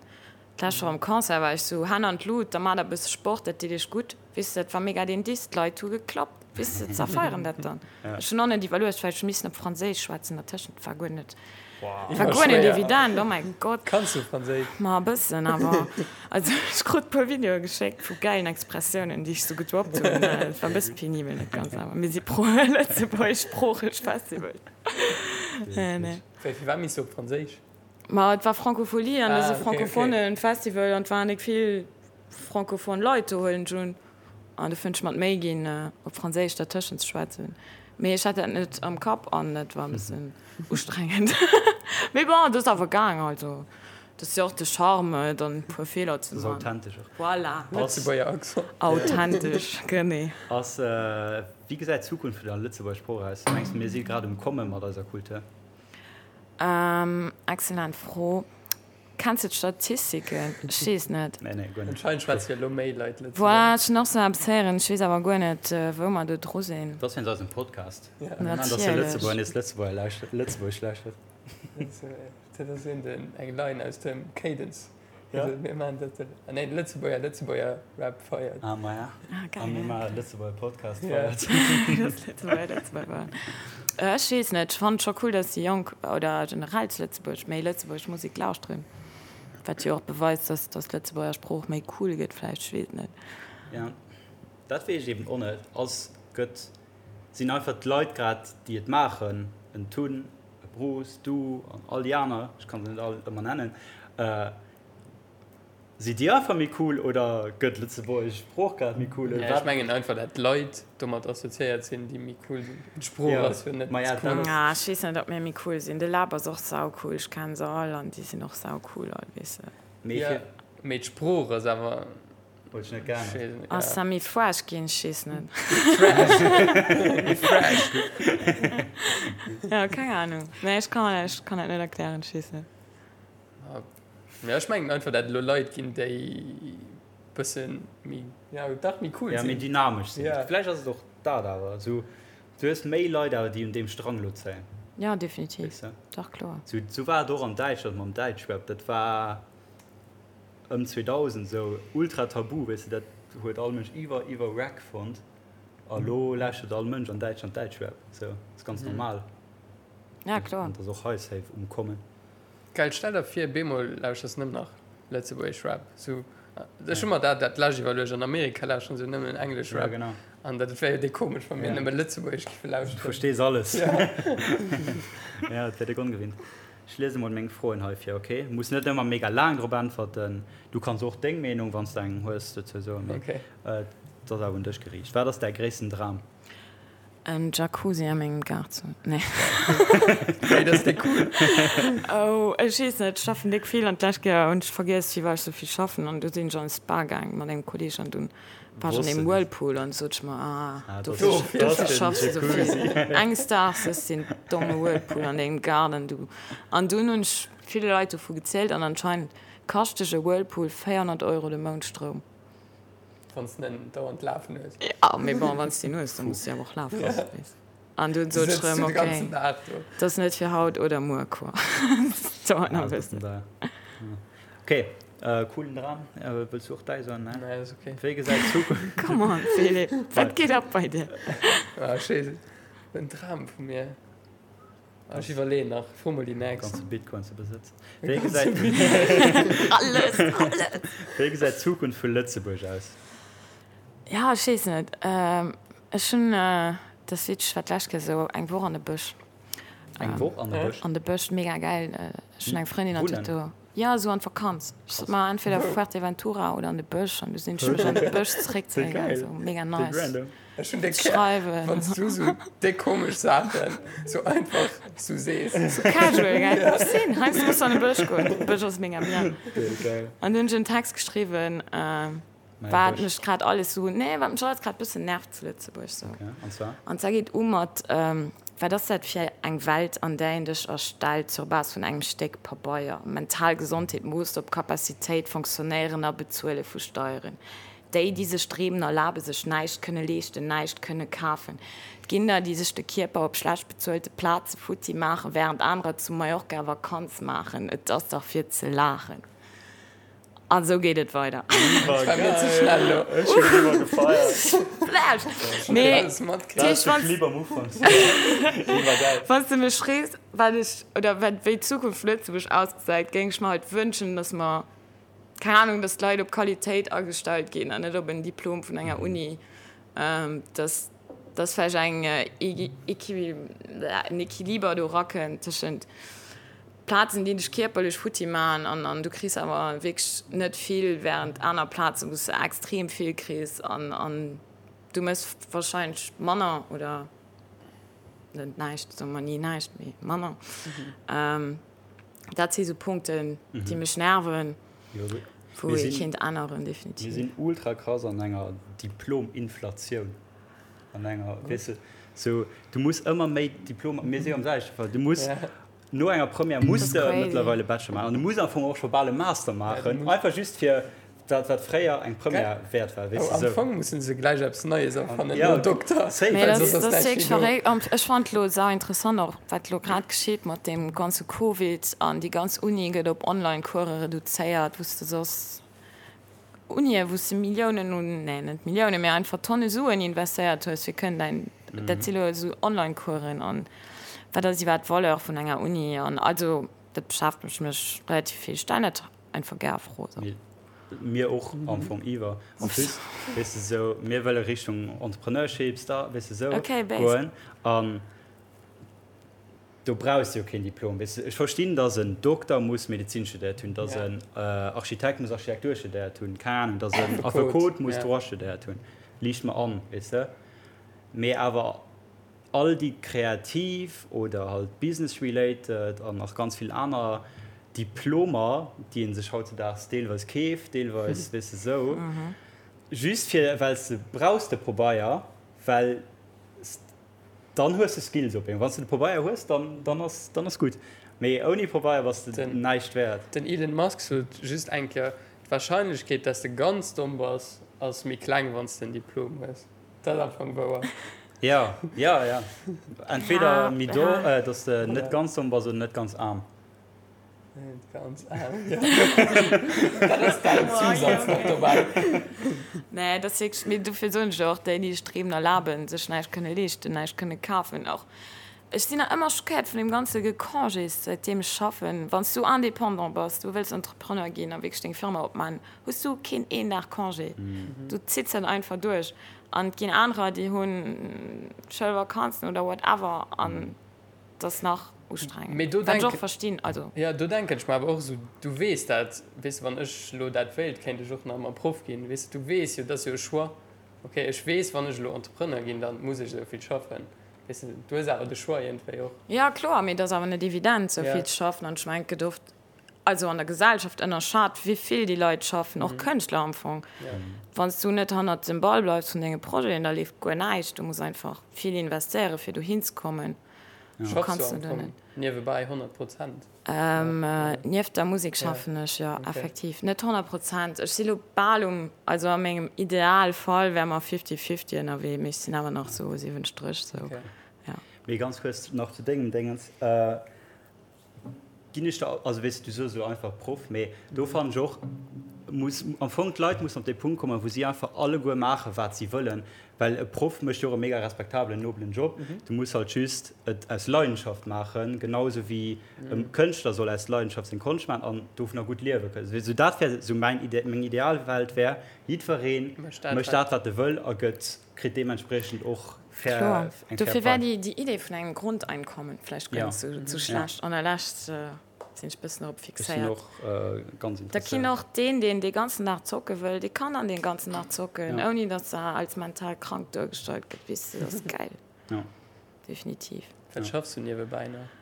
D'lescht Woch am Concert war ech sou, Hänn an d'Lut, da maacht der e bësse Sport, dat deet iech gutt. Weess de, dat war mega deen Diss, d'Leit hu geklappt, weess de, se feieren dat dann. Ech hunn och net iwwerluecht, well ech hu missen op Franséisch schwätzen dertëschent, war guer net, war guer net evident, oh mäi Gott. Kanns du Franséisch? Ma e bëssen, awer also ech krut e puer Videoe geschéckt vu gäilen Expressiounen, déi ech sou gedroppt hunn, et war e bësse penibel, net ganz, awer mir si pro lëtzebuergeschsproocheg Festival. Nee. Wéi, firwat misst du op Franséisch? Ma et war Francophonie an et ass e Ah, okay, okay. francophone Festival an et waren nik vill francophone Leit do, huelen ech un. An du fënnt ech mer d'Méi ginn, op Franséisch dertëschent ze schwätzen. Mee ech hat dat net am Kapp an et war e bëssen ustrengend. Mee bon, et ass awer gaang. Also, dat ass jo och de Charme, dann e puer Feeler ze Dat ass man. authentesch och. Voilà. Lëtzebuerger Accent. Authentesch, genee. Ass, wéi gesäit d'Zukunft vun der Lëtzebuerger Sprooch aus? Mengs de, mir si grad um Komme mat eiser Kultur? Excellent Fro. Kenns de d'Statistiken? Ech weess net. Nee, nee, guer net. Anscheinend schwätze jo elo méi Leit Lëtzebuergesch. Voilà, ech hunn och sou eppes héieren. Ech weess awer guer net, wou mer do dru sinn. Dat ass wéinst eisem Podcast. Ja. Mir maachen, dass de Lëtzebuerger nees Lëtzebuerger lauschtert, Lëtzebuergesch lauschtert. Dat ass een den, eng Line aus dem Cadence. Ja. Mir maachen dat de, ah nee, de Lëtzebuerger Lëtzebuerger Rap feiert. Ah, maja. Ah, geil. A mir maachen Lëtzebuerger Podcast Ja. feiert. Das Lëtzebuerger Lëtzebuerger. Ech weess net, ech fannen et scho cool, dass déi Jonk oder generell zu Lëtzebuerg méi lëtzebuergesch Musek lauschteren. Wat jo och beweist, dass dass d'Lëtzebuerger Sprooch méi cool gëtt vläicht, ech weess et net. Ja, dat weess ech eben och net. Ass, gëtt, sinn einfach d'Leit grad, déi et maachen, en Tun, e Bruce, du an all déi aner, ech kann se net all ëmmer nennen, si déi einfach méi cool oder gëtt d'lëtzebuergesch Sprooch grad méi cool oder Ech wat? mengen einfach, dat d'Leit domat assoziéiert sinn, déi méi cool sinn. D'Sprooch ass jo net cool. Ah, ech weess net, ob mir méi cool sinn. De Lab ass och saucool, ech kennen se all an déi sinn och saucool all, weess de. Mee mee d'Sprooch ass awer. Huet sech net geännert. Ass da méi fresh ginn? Ech weess net. Méi fresh. Jo, keng Ahnung. Nee, ech kann, ech kann dat net erklären. Ech weess net. Ja, ech mengen einfach, dat et elo Leit ginn, déi. Bëssen méi, ja dach méi cool sinn. Ja, méi dynamesch sinn. Ja. Vläicht ass et och dat awer esou, du hues méi Leit awer, déi un deem Strang elo zéien. Ja, definitiv. Weess de? Dach, kloer. Sou, sou war et och an Däitschland mam Däitschrap. Dat war ëm 2000 esou ultra tabu, weess de, dat huet all Mënsch iwwer, iwwer wack fonnt. A lo lauschtert all Mënsch an Däitschland Däitschrap. Sou, ass ganz normal. Ja, kloer. An et ass och hei safe um Kommen. Geil, stell der vir bemol lauschters nëmmen nach lëtzebuergesch Rap, sou ech hu mer dat dat lescht iwwerluecht, an Amerika lauschteren se nëmmen englesch Rap an dat wär jo déck komesch wa mir nëmme lëtzebuergesch giffe lauschteren. Du verstees alles. Ja, et wär déck ongewinnt. Ech liese mol meng Froen hei vir, ok? Muss net ëmmer mega laang drop äntwerten. Du kanns och deng Meenung, wann s de eng hues, dozou soen, mee et ass awer un dech geriicht. Wat ass däi gréissten Dram? En Jacuzzi a mengem Gaart ze hunn. Nee. Hey, dat ass déck cool. Oh, ech weess net, ech schaffen déck vill an d'lescht Kéier hunn ech vergiess, wéi war ech sou vill schaffen an du sinn ech an de Spa gaang mat engem Kolleeg an dunn war ech an deem Whirlpool an du sot ech mer, ah, dofir dofir schaffs de sou vill. Enges Daags hues de deen domme Whirlpool an dengem Gaart an du. An dunn hunn ech ville Leit dovu gezielt an anscheinend kascht dech e Whirlpool 400 Euro de Mount Stroum. Wann s de en dauernd lafen hues. Ja, mee bon, wann s de en hues, da muss de awer och lafe loossen, weess. An dunn sot ech erëm, ok, dat ass net fir haut oder muer, quoi. Dat dauert nach e bëssen. Ok, coolen Dram. Wëlls du och däi soen? Nee, dat ass ok. Wéi gesäit d'Zukunft. Come on, Philippe, wat geet ab bei dir? Ah, schéi, en Dram vu mir. Ech iwwerleeën nach. Fro mol déi nächst. Ganze Bitcoin ze besëtzen. Wéi gesäit Alles, alles! Wéi gesäit d'Zukunft vu Lëtzebuerg aus? Ja, ech weess net. Ech hunn, dat ass witzeg, ech war d'lescht Kéier esou eng Woch an de Bësch. Eng Woch an de Bësch? An de Bësch, mega gäil. Ech hunn eng Frëndin an d'huet do. Ja, esou an d'Vakanz. Ech sot mer entweder Fuerteventura oder an de Bësch an du sinn ech mech an de Bësch zeréckzéien gaangen. Esou mega nice. Ech hunn déck gär, wann s du sou déck komesch Saachen sou einfach sou sees. Sou casual, gell? Ech sinn heiansdo muss an de Bësch goen. De Bësch ass mega bien. An du hunn ech en Text geschriwwen, wat mech grad alles sou, nee, wat mech alles grad bëssen nervt zu Lëtzebuerg sou. An zwar? An zwar geet u mat, Wat ass dat fir eng Welt, an där een dech erstellt sur Base vun engem Stéck Pabeier? Mental Gesondheet moosst op Capacitéit, Fonctionnéieren a Bezuele vu Steieren. Déi, déi sech Dreemen erlaben, sech näischt kënne leeschten, näischt kënne kafen. Et ginn der, déi sech de Kierper op schlecht bezuelte Plaze futti maachen, wärend anerer zu Mallorca Vakanz maachen. Et ass dach fir ze laachen. A sou geet et weider. Dat war mir ze schnell lo. Ech hunn iwwer gefeiert. Flash! Mee, dat heescht, wann s de mech frees, wat ech, oder wat, wéi d'Zukunft vu Lëtzebuerg ausgesäit, géing ech mer halt wënschen, datt mer, keng Ahnung, dass d'Leit op Qualitéit agestallt ginn an net op en Diplom vun enger Uni, dass dass vläicht eng en Equiliber do erakënnt tëschent Plazen, déi dech kierperlech futti maachen an an du kriss awer wierklech net vill, während aner Plazen, wou s de extrem vill kriss an an du méchs wahrscheinlech manner oder net näischt, soe mer ni näischt, mee manner. Dat si sou Punkten, déi mech nerven, wou ee kéint änneren, definitiv. Mir sinn ultra krass an enger Diplom-Inflatioun. An enger, weess de, sou, du muss ëmmer méi Diplomer, mir si jo am selwechte Fall, du muss no enger Première muss de mëttlerweile Bachelor maachen an du muss am Fong och scho bal e Master maachen, einfach just fir dat wat fréier eng Première wäert war, weess de, sou. Am Fong musse se gläich eppes Neies erfannen nom Dokter, Mee dat ass wierklech verréckt. An ech fannen et elo sau interessant och, wat elo grad geschitt mat deem ganze Covid an déi ganz Uni gëtt op Online-Course reduzéiert, wou s de soss Unien, wou s de Milliounen un, nee net Milliounen, mee einfach Tonne Suen investéiert hues, fir kënnen däin, dat si elo esou Online-Coursen an wat ass iwwerhaapt d'Valeur vun enger Uni an also dat beschäftegt mech relativ vill. Ech stellen dat einfach gär a Fro. Mir och am Fong iwwer. En plus, weess de, sou, mir wëlle Richtung Entrepreneurship, Start, weess de, sou goen. An do brauchs de jo keen Diplom, weess de. Ech verstinn, dass en Dokter muss Medezin studéiert hunn, dass en Architekt muss Architektur studéiert hunn, keng Ahnung, dass en Affekot muss Droit studéiert hunn, liicht mer an, weess de. Mee awer all déi kreativ oder halt business related an nach ganz vill aner Diplomer, déi ee sech hautzedaags deelweis keeft, deelweis, weess de, sou, just fir well s de brauchs de Pobeier, well s dann hues de Skills op eemol. Wann s de de Pobeier hues, dann, dann ass, dann ass gutt. Mee ouni Pobeier bass de näischt wäert. Den Elon Musk sot just eng Kéier, Et. D'Warscheinlechkeet, dass de ganz domm bass, ass méi kleng, wann s de en Diplom hues. Dat ass am Fong wouer. Ja, ja, ja. Entweder méi do, dass de net ganz domm bass oder net ganz aarm. Net ganz aarm, jo. Dat ass däin Zousaz nach dobäi. Nee, dat ass wierklech, mee dofir soen ech jo och, déi, déi sech d'Reemen erlaben, sech näischt kënne leeschten, näischt kënne kafen och. Ech sinn nach ëmmer schockéiert vun deem ganze Gecongés, säitdeem ech schaffen. Wann s du Indépendant bass, du wëlls Entrepreneur ginn a wierklech deng Firma opmaachen, hues du keen een Dag Congé. Du zitts dat einfach duerch. An et ginn anerer, déi hu Schoulvakanzen oder whatever an et ass nach ustrengend. Wat ech och verstinn. Also. Jo, do denken ech mer awer och esou, du weess dat, weess de, wann ech elo dat wéilt, kéint ech och nach ëmmer Proff ginn, weess de, du weess jo, dat ass jo e Choix. Ok, ech weess, wann ech elo Entrepreneur ginn, da muss ech esou vill schaffen. Weess de, du hues awer de Choix iergendwéi och. Jo, kloer, mee et ass awer net evident, esou vill ze schaffen. An ech mengen, et gëtt oft, also an der Gesellschaft, ënnerschat, wéi vill déi Leit schaffen, och Kënschtler am Fong. Wann s du net hannert dem Ball bleifs vun denge Projeten, da leeft guer näischt. Du muss einfach vill investéieren, fir dohin ze kommen. Schaffs du am Fong niewebäi 100 Prozent? Nieft der Musek schaffen ech, jo, effektiv. Net 100 Prozent. Ech si lo bal um, also a mengem Idealfall wäre mer fifty-fifty ënnerwee, mee ech sinn awer nach sou 70 sou, jo. Mee ganz kuerz nach zu dengem Déngens, ginn ech der, also weess de, du soos elo einfach Proff, mee do fannen ech och, muss am Fong d'Leit mussen op dee Punkt kommen, wou si einfach alleguer maachen, wat si wëllen, Well e Proff mécht jo och e mega respektabelen, nobelen Job. Du muss halt just et aus Leidenschaft maachen, genau esou wéi e Kënschtler soll aus Leidenschaft seng Konscht maachen an dovunner gutt liewe kënnen. Esou dat wär esou mäin, meng Idealwelt wär, jiddweree mécht dat, wat e wëll a gëtt, kritt deementspriechend och fair, eng fair Dofir wär déi Idee vun engem Grundeinkommen vläicht guer net esou schlecht. An der Lescht Sinn ech bëssen drop fixéiert. Da kinn och deen, deen dee ganzen Dag zocke wëll, dee kann dann dee ganzen Dag zocken, ouni datt er als mental krank duergestallt gëtt. Weess de, dat ass gäil. Definitiv. Wat schaffs du niewebäi nach?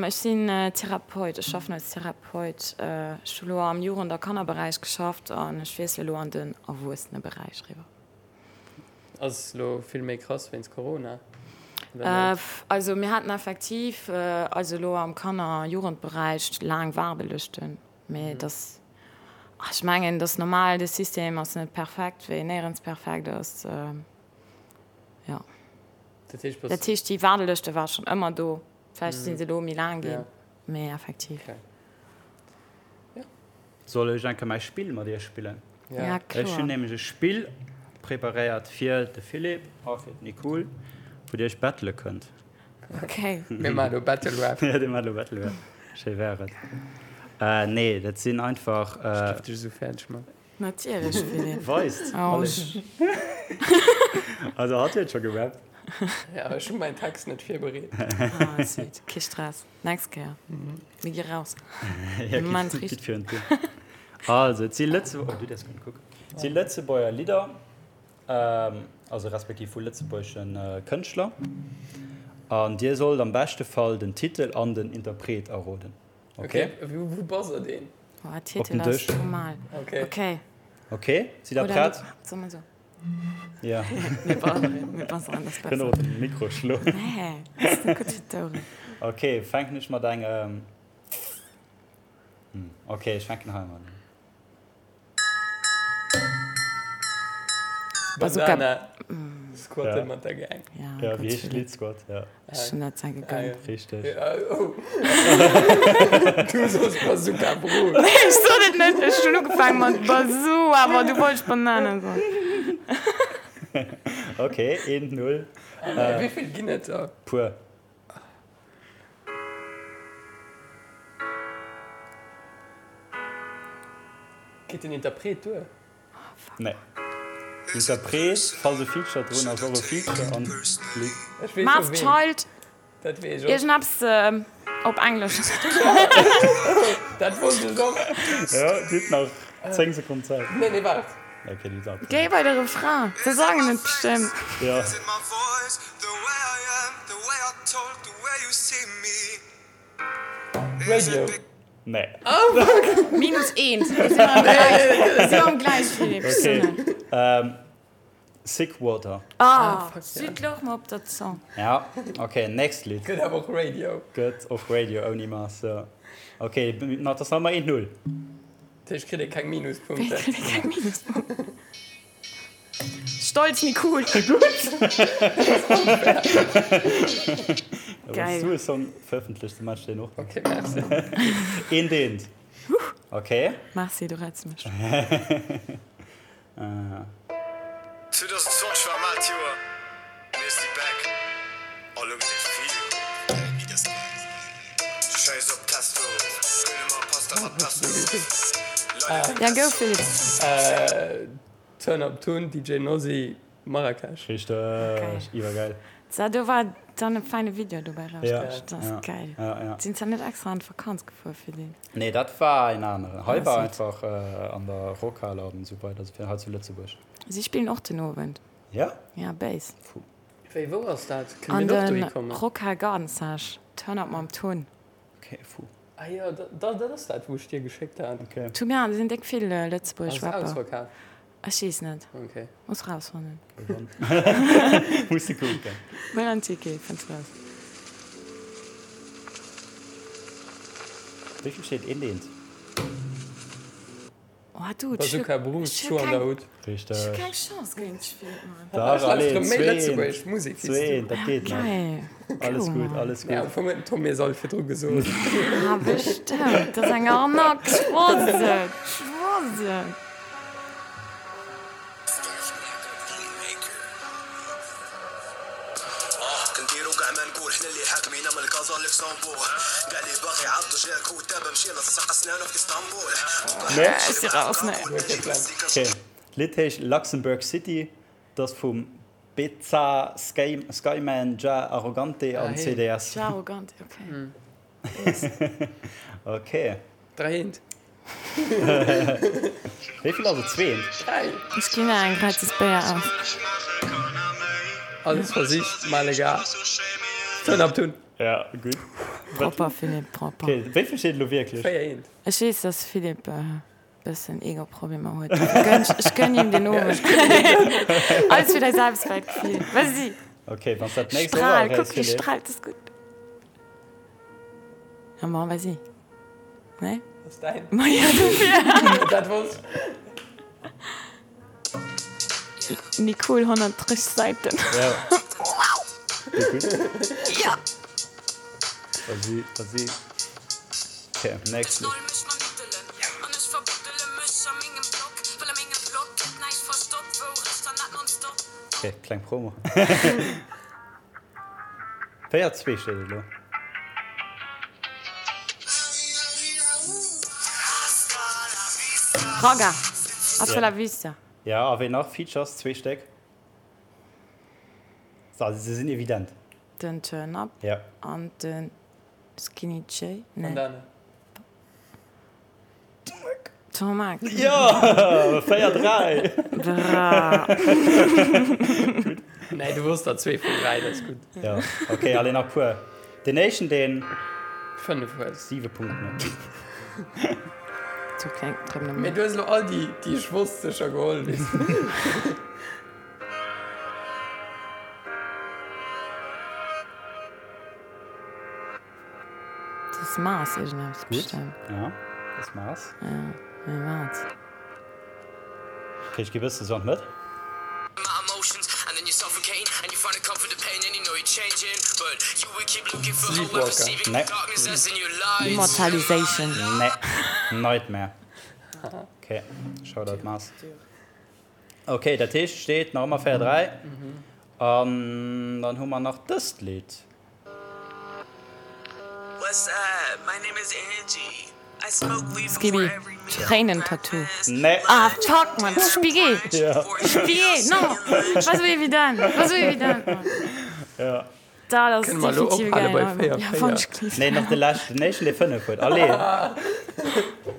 Ech sinn Therapeut, ech schaffen als Therapeut. Ech hu lo am Jugend a Kannerberäich geschafft an ech wiessele lo an den Erwuesseneberäich eriwwer. Ass lo vill méi krass wéinst Corona? Also mir haten effektiv also elo am Kanner a Jugendberäich laang Waardelëschten, mee et ass, ech mengen, et ass normal, de System ass net perfekt, wéi en néierens perfekt ass, jo. Dat heescht, déi Waardelëschte ware schonn ëmmer do, vläicht si se elo méi laang ginn, mee effektiv. Soll ech eng Kéier mäi Spill mat iech spillen? Ja, kloer. Ech hunn nämlech e Spill preparéiert fir de Philippe a fir d'Nicole, wou dir iech battele kënnt. Ok. Mir maachen elo Battle Rap. Ja, dir maacht elo Battle Rap. Schéi wär et. Nee, dat sinn einfach. Ech géif dech esou fäerdeg man. Natierlech, Philippe. Weist. Oh. Also hatt huet scho gerappt. Ja, ech hu mäin Text net virbereet. Ah, sweet. Kee Stress. Nächst Kéier. Mir gi raus. Ja, Moment, gitt virun d'Dier. Also, et si Lëtze-, oh, du däerfs guer net kucken. Et si Lëtzebuerger Lidder, also respektiv vu lëtzebuergesche Kënschtler. An dir sollt am beschte Fall den Titel an den Interpret erroden. Okay? Okay, wou bass deen? Oh, Titel ass normal. Okay. Okay. Okay, sidd der prett? Soll mer so? Ja. Mir buzzeren, mir buzzeren, das besser. Kënnt och op den Mikro schloen. Nee, das ist net gutt fir d'Oueren. Okay, fänken ech mat engem. Hm, okay, ech fänken hei mat un. Bazooka. Bandana. Squatte mat der Gang. Ja, Ja, wéi heescht d'Lidd? Squat, ja. Ech hunn dat sehr gegönnt. Richteg. Oh. Du soos Bazooka Bro. Nee, ech sot et net. Ech hunn ugefaangen mat Bazoo, awer du wollts Banana soen. Ok, 1, 0. Wéi vill ginn et der? Puer. Geet den Interpret duer? Nee. Interpret, falls e Feature drun ass, och e Feature an d'Lidd. Masked Child, Dat weess ech och. iergendeppes op Englesch. Dat wosst ech och. Jo, dir hutt nach 10 Sekonnen Zäit. Nee, nee, waart. Ok, du hues awer. Géi bei de Refrain, se sangen et bestëmmt. Jo. Radio. Nee. Minus eent. Mir sinn am Gläich. Mir sinn am Gläich, Philippe. Okay. Ähm, Sick Water. Ah, Süd louch mer op der Zong. Ja, okay, nächst Lidd. Gëtt awer och Radio. Gëtt och Radio ouni Mass, jo. Okay, na, dat ass nach ëmmer 1-0. Dat heescht, kritt ee keng Minuspunkten? Wéi kritt ee keng Minuspunkten? Stolz Nicole! Gutt! Geil. Wann s du e Song verëffentlechts, da maache ech deen och. Ok, merci. Eent, eent. Ok. Merci, du retts mech. 2020 war e maalt Joer, mir si back a lo gëtt et vill. Schäiss op Testo, gëlle mer Pasta mat Pesto. Ja, go Philippe! Turn Up Tun, DJ Nosi, Marrakesch. Richteg, iwwergeil. So, do war dann e feine Video dobäi Ja, rausgerutscht. Dat ass ja, geil. ja, ja. Sinn se net extra an d'Vakanz gefuer fir deen? Nee, dat war en aneren. Hei war Ah, einfach an der Rockhal an esou weider, also fir hei zu Lëtzebuerg. Si spillen och den Owend. Ja? Ja, Bass. Puh. Wéi, wou ass dat? Kënne An mir och dohi de kommen? Rockhal Garnissage. Turn Up mam Tun. Okay, puh. Ah jo, dat ass dat, wou ech dir geschéckt hat. Okay. Tun, ja, do sinn déck vill lëtzebuergesch Ass et Rapper. ausverkaf? Ech weess net. Okay. Muss rausfannen. Muss de kucken. Huel en Ticket, fënns raus. Wéi vill steet een deent? Oh du, ech hu Bazooka Bruce, Schuh an der Hut. Richteg. Ech hu keng Chance géint dech, Philippe, Mann. Dach, Ech lauschteren allez, méi zweent, lëtzebuergesch Musek wéi s du. zweent, dat geet nach. Geil. Alles Cool, gutt, Mann. alles Mee am gutt. Fong huet den Tom mir se all virdru gesot. Ah, bestemmt. Dat ass eng Arnaque. Ech wosst et. Ech wosst et. Nee? Ech si raus, nee. Okay. D'Lidd heescht Luxembourg City, 't ass vum Beza Skyman, Jah Arrogante an CDS. Jah Arrogante, okay. Okay. 3 eent. Wéi vill ass et? Zweent? 3. Ech ginn der eng gratis Béier aus. Alles versicht, mal egal. Turn up tun. Ja, gutt. Propper, Philippe, propper. Okay, wéi vill steet elo wierklech? 4 eent. Ech weess, dass Philippe e bëssen Ego-Problemer huet. Ech gönn him den Owend. Alles fir däi Selbstwertgefill. Vas-y! Okay, wann s dat nächst och Strahl, erréichs, kuck, wéi Philippe. strahlt, das ist gutt. Ja, bon, vas-y. Nee? Ass däin. Ma ja, dofir. Dat wosst. Nicole, 130 Säiten. Ja. Gutt. Ja! Vas-y, vas-y. Okay, next. Okay, kleng Promo. 4, 2 steet et elo. Ragga, Hasta la vista. Ja, a ween nach? Features, zwee Stéck. Also se sinn evident. Den Turn Up Ja. an den Skinny J. Nee. Bandana. Tomac. Jo, 4, 3. Bra. Nee, du wosst der zwee vun 3, dat ass gutt. Ja, okay, allez nach puer. Den éischten, deen 5 huet. 7 Punkten huet. Zu kleng, trëm Mee du hues elo all déi, déi ech wosst, sécher geholl, weess de. Dat ass Mars iergendeppes Gutt, bestemmt. ja, dat ass Mars. Ja, mee wat? Okay, ech gi bësse sou an d'Mëtt. Sleepwalker. Nee. Immortalization. Nee. Nightmare. Okay, Shoutout Mars. Okay, dat heescht, steet nach ëmmer 4, 3. An dann hu mer nach dëst Lidd. Skibi, Tréinen-Tattoo. Nee. Ah fuck man, Spigé! Ja. Spigé, non! War sou evident, war sou evident, man. Ja. Dat ass Kënne mer elo definitiv ophale geil. bei 4, Ja, 4? wann ech gelift. Nee, nach de leschten, den éischten, dee 5 huet. Allez!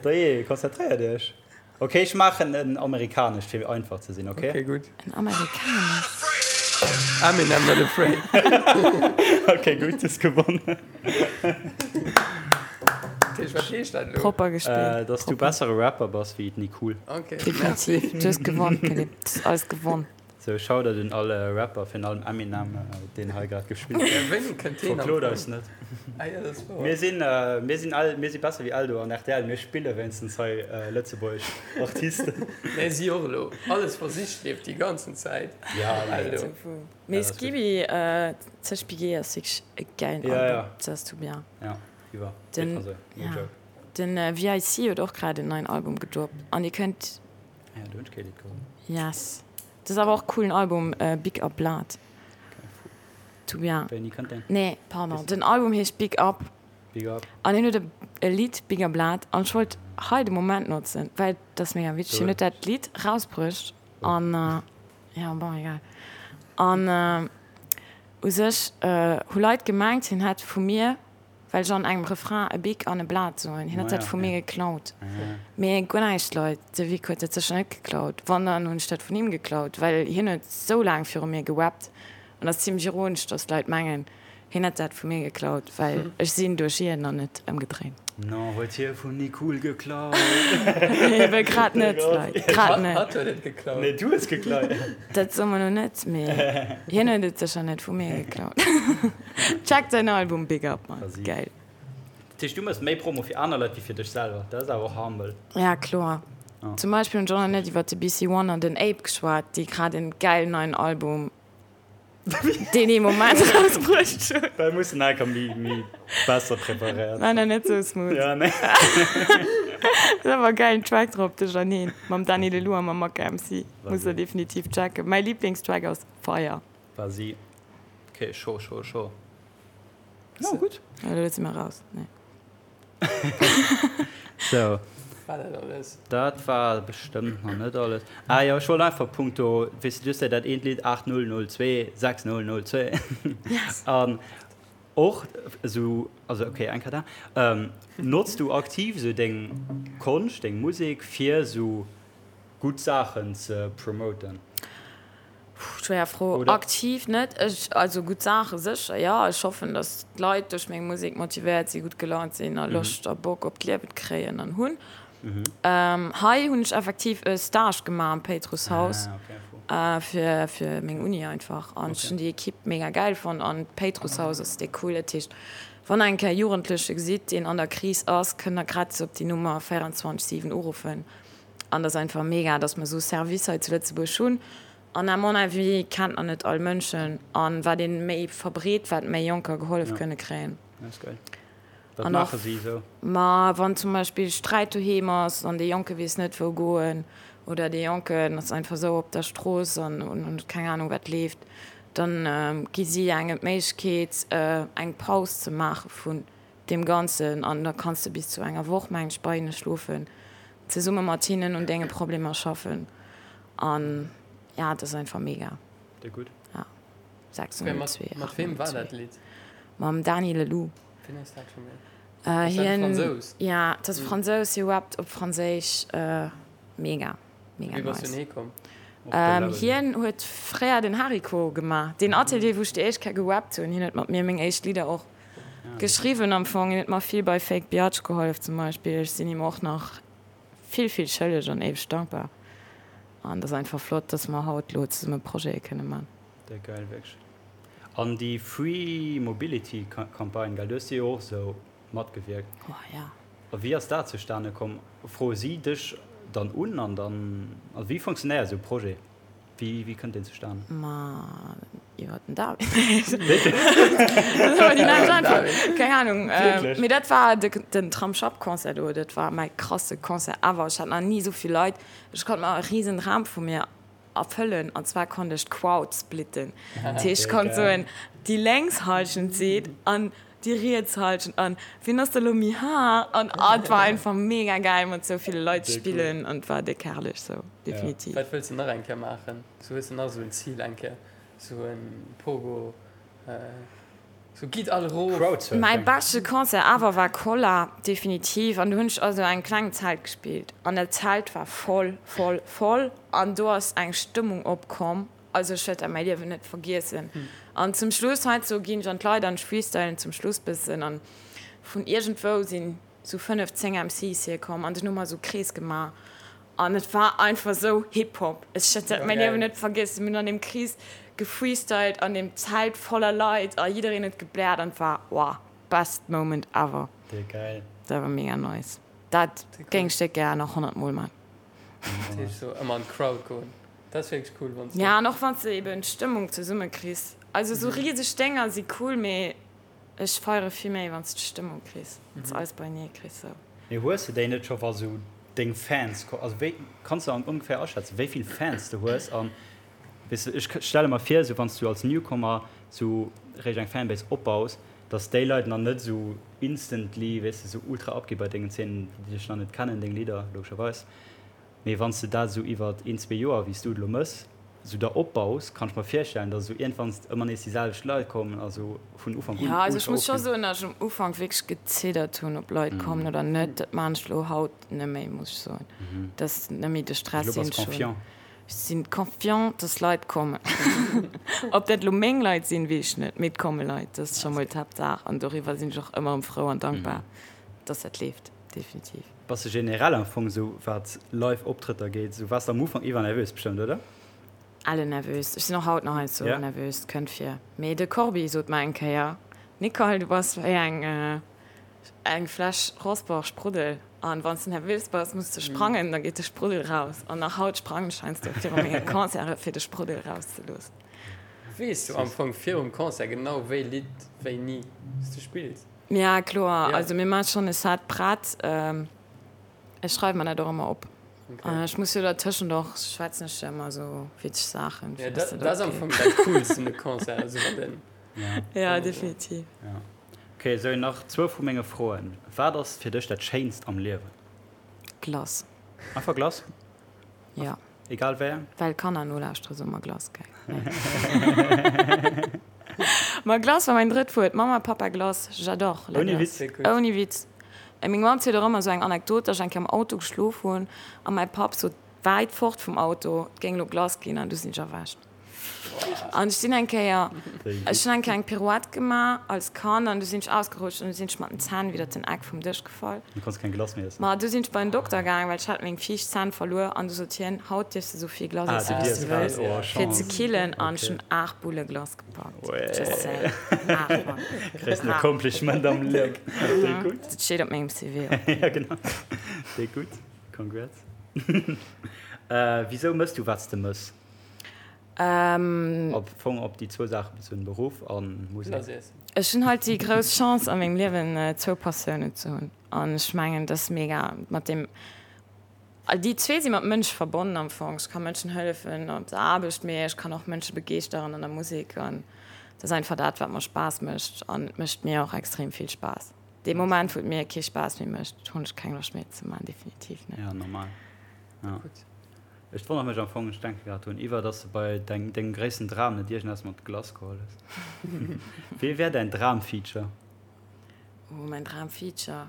Dajee, konzentréiert iech. Ok, ech maachen en amerikanescht fir einfach ze sinn, ok? Ok, gutt. En amerikanescht? Eminem, Not Afraid. Ok, gutt, hues gewonnen. Dat heescht, wat heescht dat elo? Propper gespillt. Dass du bessere Rapper bass wéi d'Nicole. Ok, merci. Definitiv. Du hues gewonn, Philippe. Du hues alles gewonn. Sou, Shoutout un all Rapper, virun allem Eminem, deen hei grad gespillt huet. Wéini kënnt deen am Verklot eis net. Ah jo, dat ass wouer. Mir sinn, mir sinn all, mir si besser wéi Eldo an rtl, mir spille wéinstens hei lëtzebuergesch Artisten. Mä si och elo. Alles versicht leeft déi ganzen Zäit. Ja, nee. Eldo. Mee Skibi, Zeg Bigé ass wierklech e gäilen Album, dat ass tout bien. Ja, iwwer. Den, Also, no ja. joke. Den VIC huet och grad en neien Album gedroppt an dir kënnt. Ah ja, do hunn ech kee Lidd geholl. Yes. Dat ass awer och coolen Album, Big Up Blood. Tout bien. Wéini kënnt deen? Nee, pardon, den Album heescht Big Up. Big Up. An hien huet e Lidd, Big Up Blood, an ech wollt hei de Moment notzen, well dat ass mega witzeg, hien huet dat Lidd rausbruecht an, jo, bon, egal. An u sech hu Leit gemengt, hien hätt vu mir Well ech an engem Refrain e Bic an e Blat soen. Hien huet dat vu mir geklaut. Mee guer näischt, Leit, de Vic huet dat sécher net geklaut. Wann, dann hunn ech dat vun him geklaut, well hien huet sou laang viru mir gewappt. An ass zimlech ironesch, dass d'Leit mengen, hien hätt dat vu mir geklaut, well ech sinn duerch hien an net ëmgedréint. Non, huet hie vum Nicool geklaut? Ebe grad net, Leit, grad net. Hatt huet et geklaut. Nee, du hues geklaut. Dat soe mer lo net, mee hien huet et sécher net vu mir geklaut. Checkt säin Album Big Up man, geil. Dat heescht du mëss méi Promo fir aner Leit wéi fir dech selwer, dat ass awer och humble. Ja kloer. Zum Beispill hunn ech och nach net iwwert de BC One an den Ape geschwat, déi grad en gäilen neien Album deen ee Moment rausbruecht hunn. Well mussen enker méi méi besser preparéiert War nach net sou smooth. Ja nee. Ass awer e gäilen Track drop, de Janine mam Dany Lelou a mam Maka MC. Muss der definitiv checken. Mäi Lieblingstrack ass Fire. War si. Ok, scho, scho, scho. No, gutt. Ja, elo si mer raus. Nee. So. War dat alles? Dat war bestëmmt nach net alles. Ah jo, ech wollt einfach punkto, weess de, du hues jo dat eent Lidd 8002 6002. Yes. An och esou, also ok, eng Kéier da. Notz du aktiv esou deng Konscht, deng Musek fir esou gutt Saachen ze promoten? Puh, schwéier Fro. Oder? Aktiv net. Ech, also gutt Saache sécher, jo. Ech hoffen, datt d'Leit duerch meng Musek motivéiert sinn, gutt gelaunt sinn a Loscht a Bock op d'Liewen kréien an hunn. Hei hunn ech effektiv e Stage gemaach am Péitrusshaus fir, fir meng Uni einfach. An ech hunn déi Ekipp mega gäil fonnt an d'Péitrusshaus ass déck cool. Dat heescht, wann der eng Kéier e Jugendleche gesitt, deen an der Kris ass, kënnt der gratis op déi Nummer 24, 7 uruffen. An et ass einfach mega, dass mer esou Service hei zu Lëtzebuerg hunn. An à mon avis kennt nach net all Mënschen. An wat ee méi verbreet, wat méi Jonker gehollef kënne kréien. Dat ass geil. Wat maache si esou? Ma wann zum Beispill Sträit doheem ass an dee Jonke weess net wou goen oder dee Jonken ass einfach esou op der Strooss an huet keng Anung wat leeft, dann gi si engem d'Méiglechkeet eng Paus ze maache vun deem Ganzen an da kanns de bis zu enger Woch, mengen ech, bei hinne schlofen, zesumme mat hinnen un denge Problemer schaffen an ja, dat ass einfach mega. Déi gutt. Ja. 602. Mat weem war dat Lidd? Mam Dany Leloup. Wien ass dat scho méi? Ass dat e Fransous? Ja, dat ass e Fransous, hie rappt op Franséisch. Mega. Mega Wéi bass du nice. hie komm? Hien huet fréier den Hariko gemaach, deen Atelier, wou ech déi éischt Kéier gerappt hunn. Hien huet mat mir meng éischt Lidder och geschriwwen am Fong. Hien huet mer vill bei Fake Biatch gehollef zum Beispill. Ech sinn him och nach vill, vill schëlleg an éiweg dankbar. An et ass einfach flott, dass mer haut elo zesumme Projete kënne man. Déck geil, wierklech. An déi Free Mobility Campagne, gell, du hues déi jo och esou matgewierkt. Oh ja. A wéi ass dat zustane komm? Froe si dech dann un an dann, also wéi funktionéiert esou e Projet? Wéi, wéi kënnt deen zustane? Ma iwwer den David. Dat ass awer déi nächst Äntwert. Keng Ahnung. Wierklech? Mee dat war de, den Tramsschapp-Concert do, dat war mäi krasse Concert ever. Ech hat nach ni esou vill Leit. Ech konnt mer e risen Dram vu mir erfëllen an zwar konnt ech d'Crowd splitten. Dat heescht, ech konnt soen, déi lénks Hallschent seet an déi riets Hallschent an wien ass da lo méi haart an ah, et war einfach mega gäil mat sou ville Leit ze spillen an et war déck herrlech sou, definitiv. Wat wëlls de nach eng Kéier maachen? Sou hues de nach sou en Zil eng Kéier, sou en Pogo? Sou gitt all erof! Crowdsurfing. Mäi beschte Concert ever war Kolla, definitiv. An do hunn ech also engem klengen Zelt gespillt an dat Zelt war voll, voll, voll an do ass eng Stëmmung opkomm, also ech wäert dat mäi Liewen net vergiessen. An zum Schluss, heiansdo ginn ech an d'Leit an ech freestylen zum Schluss bëssen an vun iergendwou sinn sou 5, 10 MCs hierkomm an dunn hu mer sou Krees gemaach. An et war einfach sou Hip-Hop. Ech wäert dat mäin Liewen net vergiessen. Mir hunn an deem Krees gefreestylt, an deem Zelt voller Leit a jiddereen huet gebläert an et war, wow, best moment ever. Déi geil. Dat war mega nice. Dat géing ech déck gär nach 100 mol man. Dat heescht sou ëmmer an d'Crowd goen. Dat ass wierklech cool wann s de. Ja an och wann s de eben d'Stëmmung zesumme kriss. Also sou riseg Dénger si cool, mee ech feiere vill méi wann s de d'Stëmmung kriss, wann s de alles beienee kriss sou. Mee hues de déi net scho wa sou deng Fans, also wéi kanns de ongeféier aschätzen wéi vill Fans de hues an weess de ech stelle mer vir sou wann s du als Newcomer sou réischt eng Fanbase opbaus, dass déi Leit nach net sou instantly weess de sou ultra abgi bei dengen Zeenen déi dech nach net kennen deng Lidder logescherweis. Mee wann s de dat esou iwwert een, zwee Joer, wéi s du et elo mëss, esou der opbaus, kann ech mer virstellen, dass esou iergendwann ëmmer nees déi selwecht Leit kommen a sou vun Ufank un Jo, also ech ultra muss scho ofginn. soen, dass ech um Ufank wierklech geziddert hunn, ob Leit kommen oder net. Dat maachen ech elo haut net méi, muss ech soen. Dat ass net méi de Stress, Elo deen bass ech hunn. confiant. Ech sinn confiant, dass Leit kommen. Ob dat elo meng Leit sinn, weess ech net, mee et komme Leit. Dat ass scho mol d'Haaptsaach an doriwwer sinn ech och ëmmer erëm frou an dankbar, dass dat leeft, definitiv. Bass de generell am Fong esou wat live Optrëtter geet, esou waars de am Ufank iwwer nervös bestëmmt, oder? Elle nervös. Ech sinn och haut nach heiansdo Ja. nervös, et kënnt vir. Mee de Corbi sot mer eng Kéier, Nicole, du bass wéi eng eng Fläsch Rossbach Spruddel an wann s de nervös bass, muss de sprangen, da geet de Spruddel raus. An nach haut sprangen ech heiansdo viru menge Concerte fir de Spruddel rauszeloossen. Weess du am Fong virum Concert genau wéi Lidd wéini s du spills? Ja kloer, Ja. also mir maache schonn e Set prett. Ech schreiwe mer dat och ëmmer op. Okay. Ech muss jo dertëschent och, schwätzen ech jo ëmmer esou witzeg Saachen, Ja, fir dass dat, dat dat ass am och Fong geet. dat Coolst un de Concert, also wann den. Ja. Ja, definitiv. Ja. Ok, sou nach zwou vu menge Froen. Wat ass fir dech dat Schéinst am Liewen? Glace. Einfach Glace? Ja. Egal wéi eng? Well Kanner nolauschtere soe mer Glace, gell? Nee. Ma Glace war mäin drëtt Wuert. Mama, Papa, Glace, j'adore la Ouni Glace. Witz? Ouni Witz. Meng Mamm zielt och ëmmer esou eng Anekdot, dass ech eng Kéier am Auto geschlof hunn a mäi Papp sot wäit fort vum Auto, et géing elo Glace ginn an du sinn ech erwächt. An ech sinn eng Kéier, ech hunn eng Kéier eng Pirouette gemaach als Kand an du sinn ech ausgerutscht an du sinn ech mat den Zänn widder den Eck vum Dësch gefall. Du konns keng Glace méi iessen? Ma du sinn ech bei den Dokter gaang, well ech hat meng viischt Zänn verluer an du sot hien, haut dierfs de sou vill Glace Ah, iessen, du wéi s dierfs du wëlls, oh, fir ze Chance. killen an ech Okay. hunn 8 Bulle Glace gepackt. Uäh. Just saying. 8, Mann. Gréissten 8. Accomplishment am Liewen. Déi gutt. Dat steet op mengem CV och. Ja, genau. Déi gutt. Congrats. Wisou mëss du, wat s de mëss? Ähm. Am Fong op déi zwou Saache bezunn, Beruff a Musek. Ech hunn halt déi grouss Chance a mengem Liewen zwou Passiounen ze hunn an ech mengen dat ass mega mat deem, déi zwee si mat Mënsch verbonnen am Fong. Ech ka Mënschen hëllefen op der Aarbecht, mee ech kann och Mënsche begeeschteren an der Musek an dat ass einfach dat wat mer Spaass mécht an et mécht mir och extrem vill Spaass. Dee Moment wou et mir kee Spaass méi mécht, hunn ech keng Loscht méi et ze maachen, definitiv net. Ja normal, ja. Ech wonnere mech am Fong, ech denke grad drun iwwer, dass de bei dengem gréissten Dram net iergendeppes mat Glace geholl hues. Wee wär däin Dram-Feature? Oh, mäin Dram-Feature?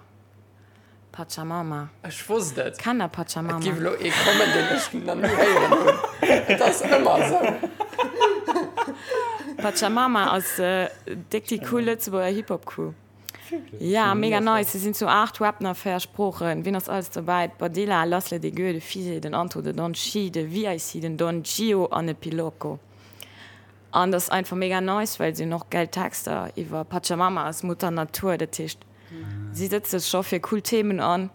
Pachamama. Ech wosst et! Kennt der Pachamama? Et géif elo ee kommen, deen ech nach ni héieren hunn. Et ass ëmmer esou. Pachamama ass déck déi cool Lëtzebuerger Hip-Hop-Crew. Ja, mega nice. Se sinn zu 8, rappen a 4 Sproochen. Wien ass alles dobäi? D'Badilla, Lassle, de Gueux, de Fise, den Anto, de Don Chi, de VIC, den Don Gio an de Piloco. An dat ass einfach mega nice, well si hunn och gäil Texter iwwer Pachamama ass Mutter Natur. Dat heescht, si sëtze sech scho fir cool Themen an.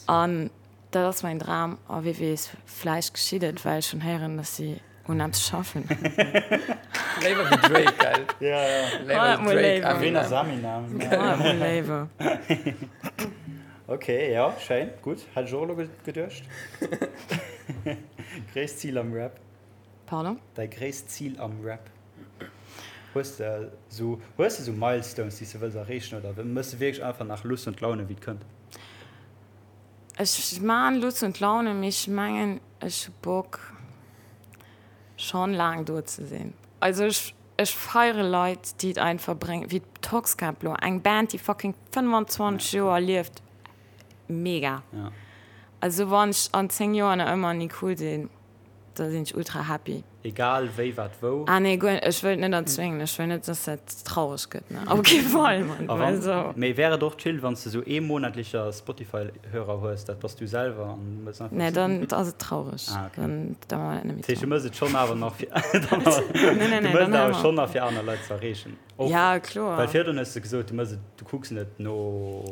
An dat ass mäin Dram. A wie weess, vläicht geschitt et, well ech hunn héieren, dass si un eppes schaffen. Léiwer wéi Drake, gell? Ja, ja. Léiwer Mol Drake, léiwer. Ween Eminem. ass Eminem? Mol léiwer. Ok, ja, schéin, gutt. Hätt ech och elo geduecht. Gréisst Zil am Rap? Pardon? Däi gréisst Zil am Rap? Hues de esou, hues de esou Milestones, déi s de wëlls erreechen oder mëss de wierklech einfach nach Lust und Laune, wéi et kënnt? Ech maan Lust und Laune, mee ech mengen ech hu Bock schon laang do ze sinn. Also ech ech feiere Leit déi et einfach bréngen, wéi d'Toxkäpp lo, eng Band déi fucking 25 Joer lieft, mega. Ja. Also wann ech an 10 Joer nach ëmmer ni cool sinn. Da sinn ech ultra happy. Egal wéi, wat, wou. Ah nee, guer, ech wëll et net erzwéngen. Ech wëll net, dass dat traureg gëtt, ne. Op kee Fall, Mann. A wann, Also. mee wär et och chill, wann s de sou ee monatlecher Spotify-Hörer hues, dat bass du selwer an du mëss einfach. Nee, dann ass et traureg. Ah, okay. Dann, da maache mer dat net méi Dat heescht, du zusammen. mëss et schonn awer nach fir, dann awer, Nee, nee, du nee, mëss dann et hale awer mer schonn op. nach fir aner Leit ze erreechen. Och, Ja, kloer. well virdrun hues de gesot, du mëss et, du kucks net no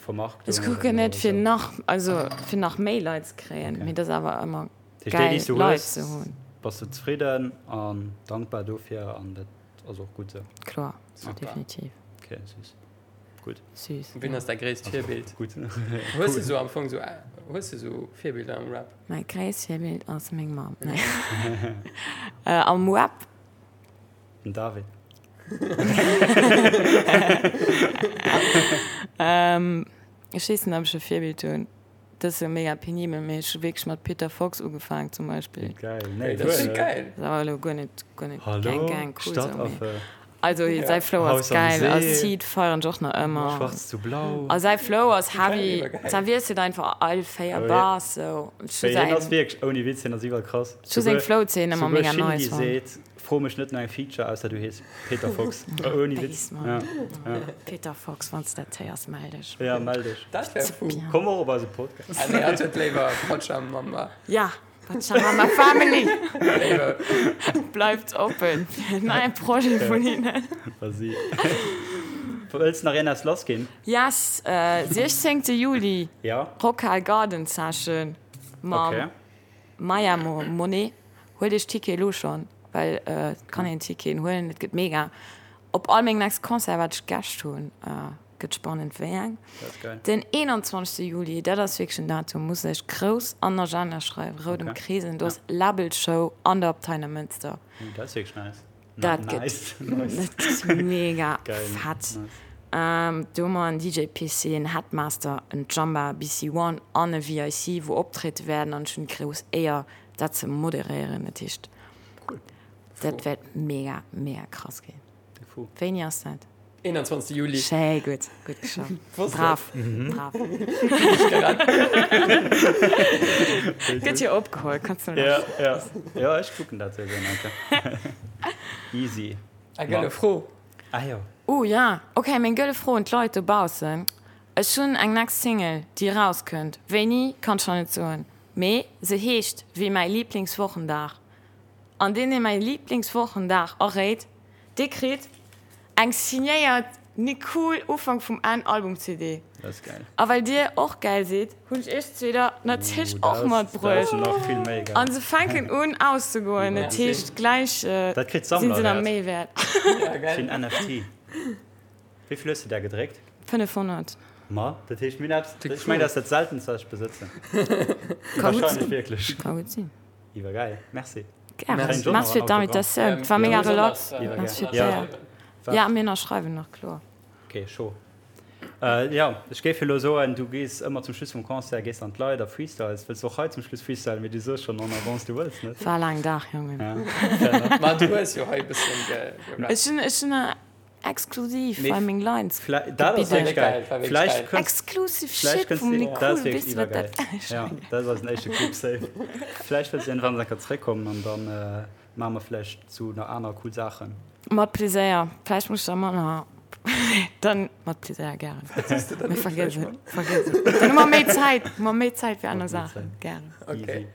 Vermarktung Ech oder kucken no net fir esou. nach, also fir nach méi Leit ze kréien, Okay. mee dat ass awer ëmmer Dat heescht, déi, déi geil s du Leit hues, ze hunn. bass du zefridden an dankbar dofir an dat ass och gutt esou. Kloer, Okay. definitiv. Okay, süß. Gutt. Süß, Wien ja. ass däi gréisst Also, Virbild? gutt. Hues de sou am Fong sou, hues de sou Virbilder am Rap? Mäi gréisst Virbild ass meng Mamm. Nee. Am Rap? Den David. Ech weess net, ob ech e Virbild hunn. Dat ass jo mega penibel, mee ech hu wierklech mat Peter Fox ugefaang zum Beispill. Geil, nee, Dat ass guer net. geil. Dat ass awer elo guer net, guer net Hallo, Gang Gang cool sou, mee Stadtaffe. also Ja. säi Flow ass Haus am geil a See. Seed feieren ech och nach ëmmer. Schwarz zu blau. A säi Flow ass Geil, heavy, iwwergeil. säi wiesselt einfach all 4 Oh, ja. Bars sou. Ech hu Mee hien ass säin, wierklech, ouni Witz, hien ass iwwerkrass. ech hu seng Souguer, Flow-Zeen ëmmer souguer mega Shindy nice fonnt. seet, Fro mech net no engem Feature, ausser du hees Peter Fox. Ouni Witz. Base, Mann. Ja, ja. Peter Fox, wann s dat héiers, mell dech. Ja, mell dech. Dat wär fou. Bien. Komm och op eise Podcast. Ah nee, hatt huet léiwer Pachamama. Ja, Pachamama Family Léiwer. bleift oppen fir en neie Projet vun hinnen. Vas-y. Wëlls nach een eppes lass ginn? Yes, 16 Juli, Ja. Rockhal Garden Session mam Okay. Maya Monet. Huelt iech Ticket elo schon, well et kann een Ticketen huelen, et gëtt mega. Op all meng next Concert wat ech Gäscht hunn, gëtt spannend wéi eng. Den 21 Juli, dat ass wierklech en Datum, muss ech grouss an den Agenda schreiwen, rout ëmkreesen, do ass Labelshow an der Abtei Neimënster. Dat ass wierklech nice. Dat gëtt dat mega fett. Do hu mer en DJ PC, en Headmaster, en Jamba, BC One an e VIC wou optriede wäerten an ech hunn déi grouss Éier dat ze moderéieren. Dat heescht dat wäert mega mega krass ginn. Wéini ass dat? 21 Juli. Schéi gutt, gutt geschafft. Brav, brav. Gëtt jo opgeholl, kanns du Ja, ja. Ja, ech kucken dat souwisou nach eng Kéier. Easy. Eng gëlle Fro. Ah jo. Oh ja, ok, meng gëlle Fro un d'Leit dobaussen. Ech hunn eng next Single, déi erauskënnt. Wéini, kann ech nach net soen, mee se heescht wéi mäi Liblingswochendag. An deen, dee mäi Liblingswochendag erréit, dee kritt eng signéiert Nicool Ufank vum Enn Album CD. Dat ass gäil. A well dir och gäil sidd, hunn ech iech zwee der natierlech och matbruecht. Dat ass nach vill méi gäil. An se fänken un auszegoen, dat heescht gläich Dat kritt sinn se der Sammlerwäert. méi wäert. Ja, gäil. Fir en NFT. Wéi vill hues de där gedréckt? 500. Ma, dat heescht mir hunn eppes, ech mengen dat ass dat seltenst wat ech besëtzen. Ka gutt Wahrscheinlech sinn. wierklech. Ka gutt sinn. Iwwergäil, merci. Gären. Merci fir d'Invitatioun. Et war mega relax. Merci fir d'Éier. Ja, mir ënnerschreiwen nach, kloer. Ok, chaud. Jo, ech géif elo soen, du gees ëmmer zum Schluss vum Concert, gees an d'Leit a freestyles. Wëlls du och hei zum Schluss freestylen? Mee du soos schonn en avance, du wëlls net. War e laangen Dag, Jongen. Ja, fair enough. Ma du hues jo hei e bëssen gerappt. Ech hunn, ech hunn exklusiv Mee bei meng Lines dat ass wierklech geil. War wierklech Vläicht geil. kënns, Exclusive vläicht Shit kënns vum du, dat Nicole, ass wierklech weess du wat iwwergeil. dat Ja, dat ass eisen éischte Clip safe. Vläicht wëlls du iergendwann enker zeréckkommen an dann maache mer vläicht zu nach aner cool Saachen. Mat Pleséier. Vläicht muss ech da manner, dann mat Pleséier gären. Mee vergiess et, vergiess et. Dann hu mer méi Zäit, hu mer méi Zäit fir aner Saachen. Gären. Easy.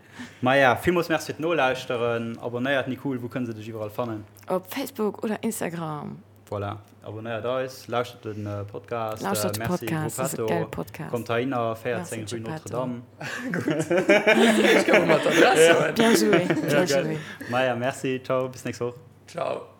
Maja, villmools Merci fir d'Nolauschteren. Abonnéiert Nicole, wou kënne se dech iwwerall fannen? Op Facebook oder Instagram. Voilà, abonnéiert eis, lauschtert de Podcast. Lauschtert de Merci Podcast, ass e Gruppetto. geile Podcast. Kommt heihinner, 14 Merci rue Geppetto. Notre-Dame. Ech gouf mat d'Adress soen. Bien joué, bien Ja, geil. joué. Maja, merci, ciao, bis nächst Woch. Ciao.